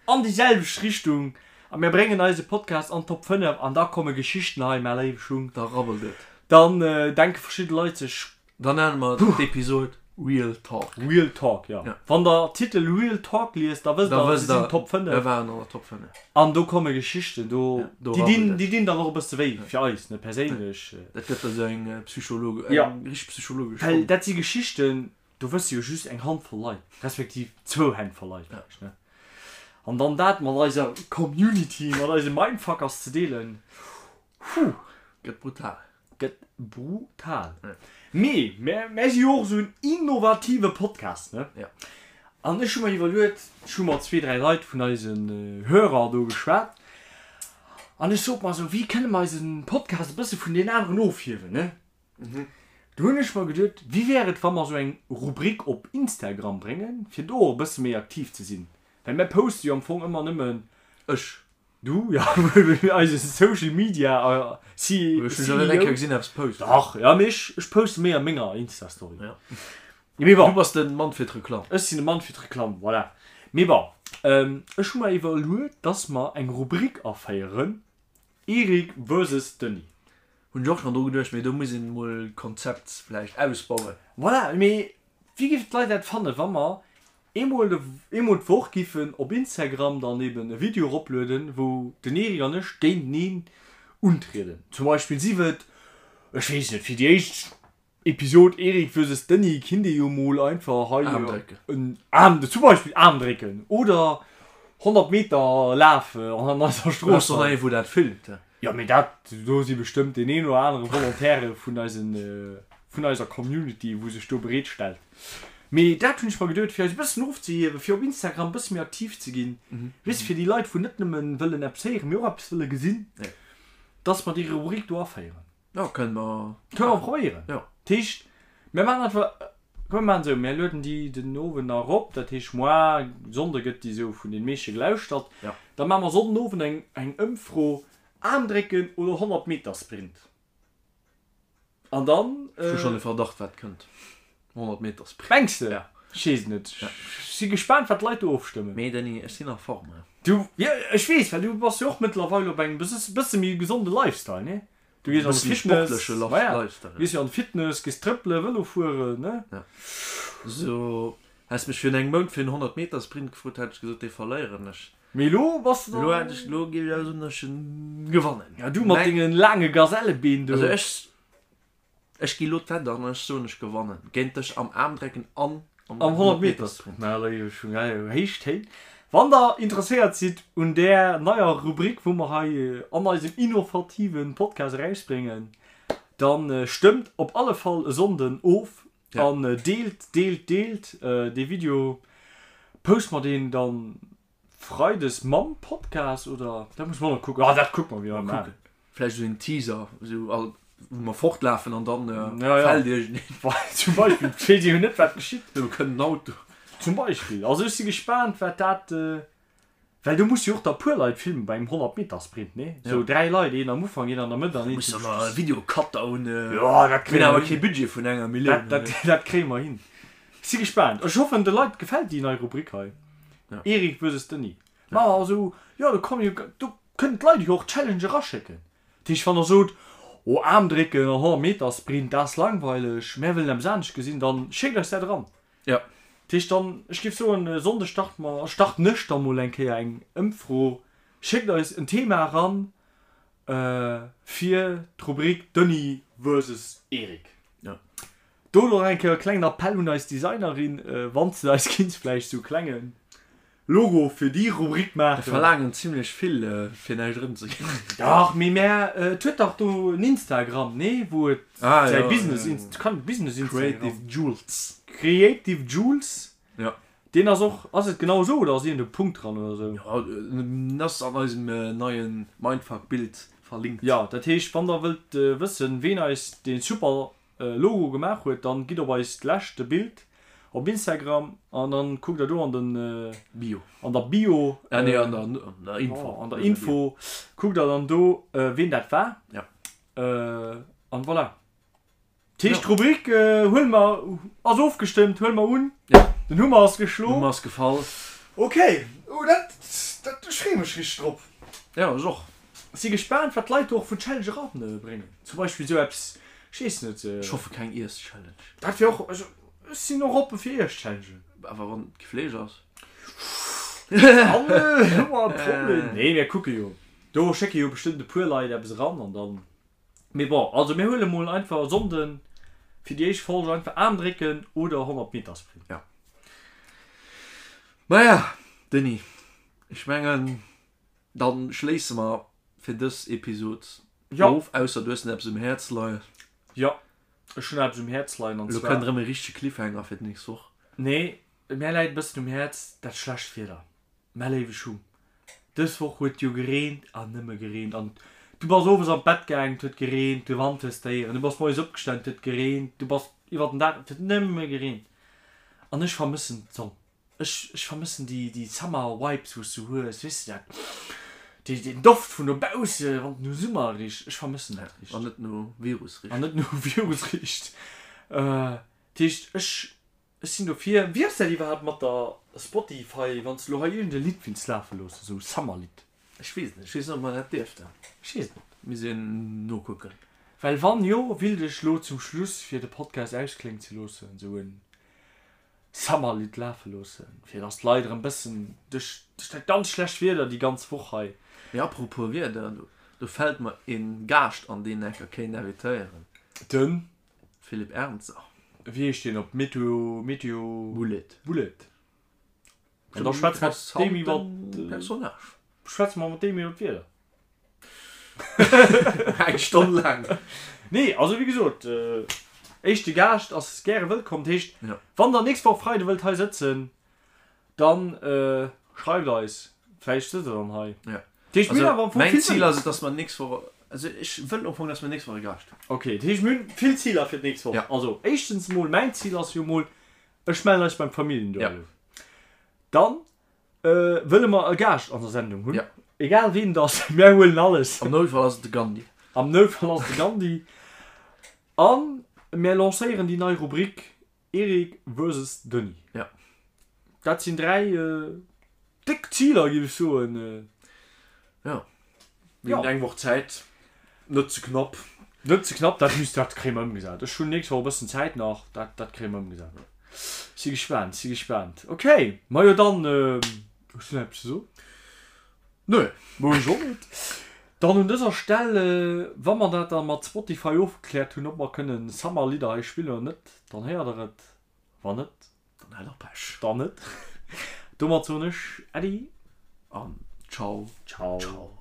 an déi selwecht Richtung a mär bréngen eise Podcast an d'Top 5 an da komme Geschichten hei, mä léiwe Schung. Da rabbelt et. Dann denke verschidde Leit sech, Dann nenne mer d'Episod Real Talk. Real Talk, jo. Wann der Titel Real Talk liest, da wësst der, mir sinn Top 5. Mir waren an der Top 5. An do komme Geschichten, do, déi dinn, déi dinn dann och e bësse wéi, fir eis, ne, perséinlech. Dat gëtt da sou eng Psychologe, eng richteg psychologesch Well dat si Geschichten, do wësse jo just eng Handvoll Leit, respektiv zwou Hänn voll Leit vläicht, ne. An dann dat mat eiser Community, mat eise Mindfuckers ze deelen, huh. Gëtt brutal. Gëtt brutal. Mee mär si jo och esou en innovative Podcast, ne? Ja. An ech hu mer iwwerluet, ech hu mat zwee, dräi Leit vun eisen Hörer do geschwat, an ech sot mer esou, wéi kënne mer eise Podcast e bësse vun deenen aneren ofhiewen, ne? Du hunn ech mer geduet, wéi wär et, wa mer esou eng Rubrik op Instagram bréngen, fir do och e bësse méi aktiv ze sinn? Well mär poste jo am Fong ëmmer nëmmen. Ech. Du, ja, eise Social Media CEO. Ech hunn schon net eng Kéier gesinn eppes posten. Dach, ja, mee ech, ech poste méi a menger Insta-Story. Ja. Mee bon. Du bass de Mann fir d'Reklamm. Ech sinn de Mann fir d'Reklamm, voilà. Mee bon, ech hu mer iwwerluet, dass mer eng Rubrik aféieren, Eric versus Denis. Hunn ech och schon dru geduecht, mee do muss een mol d'Konzept vläicht ausbauen. Voilà, mee wéi géifen d'Leit dat fannen, wa mer Eemol eemol d'Woch giffen op Instagram dann eben e Video eroplueden, wou den Eric an ech géinteneen untrieden. Zum Beispill sief et, ech weess net, fir déi éischt Episod Eric versus Denis kinnt ee jo mol einfach hei Aarm drécken. en Aarm, zum Beispill Aarm drécken oder 100 Meter Laf an eiser Strooss. Brauchs och nach ee wou dat filmt. Jo mee dat, do si bestëmmt deen een oder anere Volontaire vun eisen. vun eiser Community, wou sech do bereet stellt. Mee dat hunn ech mer geduet, fir eis e bëssen ofzehiewen, fir op Instagram e bësse méi aktiv ze ginn, weess de, fir déi Leit, wou net nëmmen wëllen eppes héieren, mee och eppes wëlle gesinn, dass mer déi Rubrik do aféieren. Jo, kënne mer. Kënne mer probéieren. Jo. Dat heescht, mir maachen einfach, komm mir maachen esou, mir lueden déi den Owend nach erop, dat heescht moar, Sonnde gëtt déi esou vun den meeschte gelauschtert. Jo. Da maache mer Sonnden Owend eng, eng Ëmfro, Aarmdrécken oder 100 Meter Sprint? An dann. Ech hu schonn e Verdacht wat kënnt. 100 Meter Sprint. Mengs de? Ja. Ech weess et net. Ech si gespaant wat d'Leit do ofstëmmen. Mee Denis, ech sinn a Form. Du, jo ech weess, well du bass jo och mëttlerweil op engem bësse méi gesonde Lifestyle, nee? Du gees an de Fitness, maja, gees jo an de Fitness, gees trëppelen, Vëlo fueren, ne? Ja. So, häss mech virun engem Mount fir en 100 Meter Sprint gefrot, hätt ech gesot, dee verléieren ech. Mee elo bass de Elo hätt ech, elo géif ech awer soen, datt ech en gewannen. Ja, du mat dengen laange Gazellebeen do. Also ech, Ech gi lo d'Wett an ech soen ech gewannen géint dech am Aarmdrecken an am 100 Meter Sprint. Mä léiwe Schung, héich Téin. Wann der interesséiert sidd un där neier Rubrik wou mer hei an eisem innovativen Podcast erausbréngen, dann stëmmt op alle Fall e Sonnden of an deelt, deelt, deelt dee Video. Poste mer deen dann Freides mam Podcast oder? Dat muss mer och nach kucken. Ah, dat kucke mer, wéi mer maachen. Vläicht esou en Teaser, esou all, wou mer fortlafen an dann fält iergendeen. Zum Beispill, et weess ee jo net, wat geschitt. Do kënnt en Auto. Zum Beispill. Also ech si gespaant, wat dat, well do musse jo och da puer Leit filmen bei engem 100 Meter Sprint, nee? Esou 3 Leit, een am Ufank, een an der Mëtt an een zum Schluss. Musse mer e Videocutter hunn. Jo, dat kréie mer hin. Mir hunn awer kee Budget vun enger Millioun. Dat, dat kréie mer hin. Si gespaant. Ech hoffen de Leit gefält déi nei Rubrik hei. Erik versus Denis. Ma also jo do kommen jo do kënnen d'Leit jo och Challenge eraschécken. Dat heescht wann der sot oh Aarmdrécken an 100 Meter Sprint dat ass langweileg mär wëllen eppes anescht gesinn dann schéckt eis dat eran. Jo. Dat heescht dann ech géif soen e Sonnde starte mer starten ech da mol eng Kéier eng Ëmfro. Schéckt eis en Thema eran fir d'Rubrik Denis versus Erik. Jo. Do nach eng Kéier e klengen Appell un eis Designerin, wann s de eis kinns vläicht sou klenge Logo fir déi Rubrik maachen. Mir verlaangen zimlech vill fir näischt erëmzeginn. Dach, mee mär, et huet dach do en Instagram, nee? Wou et säi Business, kann Business Instagram. Creative Jules. Creative Jules. Jo. Deen ass och, ass et genau esou oder ass iergend e Punkt dran oder esou? Jo, en ass an eisem neie Mindfuck-Bild verlinkt. Jo, dat heescht, wann der wëllt wëssen, ween eis dee super Logo gemaach huet, dann gitt op eist leschte Bild op Instagram an dann kuckt der do an den Bio, an der Bio, ah nee, an der, an der Info, an der Info kuckt der dann do ween dat war. Ja. An voilà. Dat heescht d'Rubrik huele mer, ass ofgestëmmt, huele mer un. Ja. Den Hummer ass geschloen. Hummer ass gefall. Ok, oh dat, dat, ech freeë mech richteg drop. Ja, ech och. Si gespaant wat d'Leit do och vun Challenge eran bréngen. Zum Beispill esou eppes, ech weess net. Ech hoffe keng Iess-Challenge. Dat wier och, also ech sinn och oppe fir Iess-Challengen. Awer wann et kee Fleesch ass. Dann hu mer e Problem. Nee, mir kucke jo. Do schécke jo bestëmmt e puer Leit eppes eran an dann. Mee bon, also mir huele mol einfach e Sonnden fir déi éischt Folge einfach Aarm drécken oder 100 Meter Sprint. Ja. Maja, Denis, ech mengen. Dann schléisse mer fir dës Episod of, ausser du hues nach eppes um Häerz leien. Jo, ech hunn eppes um Häerz leien an zwar. Elo kënnt erëm e richtege Cliffhanger fir d'nächst Woch. Nee, mär läit e bëssen um Häerz dat schlecht Wieder, mä léiwe Schung, dës Woch huet jo gereent an nëmme gereent an du bass owes an d'Bett gaangen, et huet gereent, de Wand hues de héieren, du bass moies opgestan, et huet gereent, du bass iwwer den Dag, et huet nëmme gereent an ech vermëssen d'Sonn. Ech ech vermëssen déi déi Summer Vibes wous du hues, weess de dat dee deen Doft vun dobausse wann et no Summer richt, ech vermëssen dat richt. An net no Virus richt. An net no Virus richt. Dat heescht ech ech sinn dofir. Wéi ass dat iwwerhaapt mat der Spotify wann s de lo hei iergend e Lidd wills lafe loossen, esou Summer Lidd? Ech weess et net, ech weess net ob mer dat dierften. Ech weess et net. Misst een nokucken. Well wann jo, willt ech lo zum Schluss fir de Podcast auskléngen ze loossen esou en Summerlidd lafe loossen, fir dass d'Leit erëm bëssen duerch dat ganz schlecht Wieder déi ganz Woch hei. Mee apropos Wieder, do fält mer een Gaascht an deen enker kéint invitéieren. Den? Philippe Ernzer. Wéi heescht deen op Meteo, Meteo. Bullet. Bullet. An da schwätze mer mat deem iwwer. Personnage. Schwätze mer mat deem iwwer d'Wieder. Eng Stonn laang. Nee, also wéi gesot. Éischte Gaascht ass gäre wëllkomm. Dat heescht, wann der nächst Woch Freide wëllt hei sëtzen, dann schreift eis. Vläicht sëtzt der dann hei. Ja. Dat heescht, mir hunn awer am Fong vill Mäin Zil ass et, dass mer nächst Woch, also ech wëll am Fong, dass mer nächst Woch e Gaascht hunn. Okay, dat heescht, mir hunn vill Ziler fir d'nächst Woch. Also éischtens emol, mäin Zil ass jo emol, ech mellen eis beim Familljenduell. Dann Wëlle mer e Gaascht an der Sendung hunn? Egal ween et ass, mär huelen alles. Am Noutfall ass et de Gandhi. Am Noutfall ass et de Gandhi. A mär lancéieren déi nei Rubrik Eric versus Denis. Ja. Dat sinn 3 déck Ziler, géif ech soen. Jo. Mir hunn eng Woch Zäit. Net ze knapp. Net ze knapp, dat misst, dat kréie mer ëmgesat. Ech hunn nächst Woch e bëssen Zäit nach, dat, dat kréie mer ëmgesat. Si gespaant, si gespaant. Ok, majo dann, hues du nach eppes ze soen? Nö. Mo ech och net. Dann un dëser Stell, wa mer dat da mat Spotify ofgekläert hunn, ob mer kënnen Summer-Lidder hei spillen oder net, dann héiert der et. Wann net, Dann hat der Pech. Dann net. Domat soen ech Äddi. An ciao. Ciao. Ciao.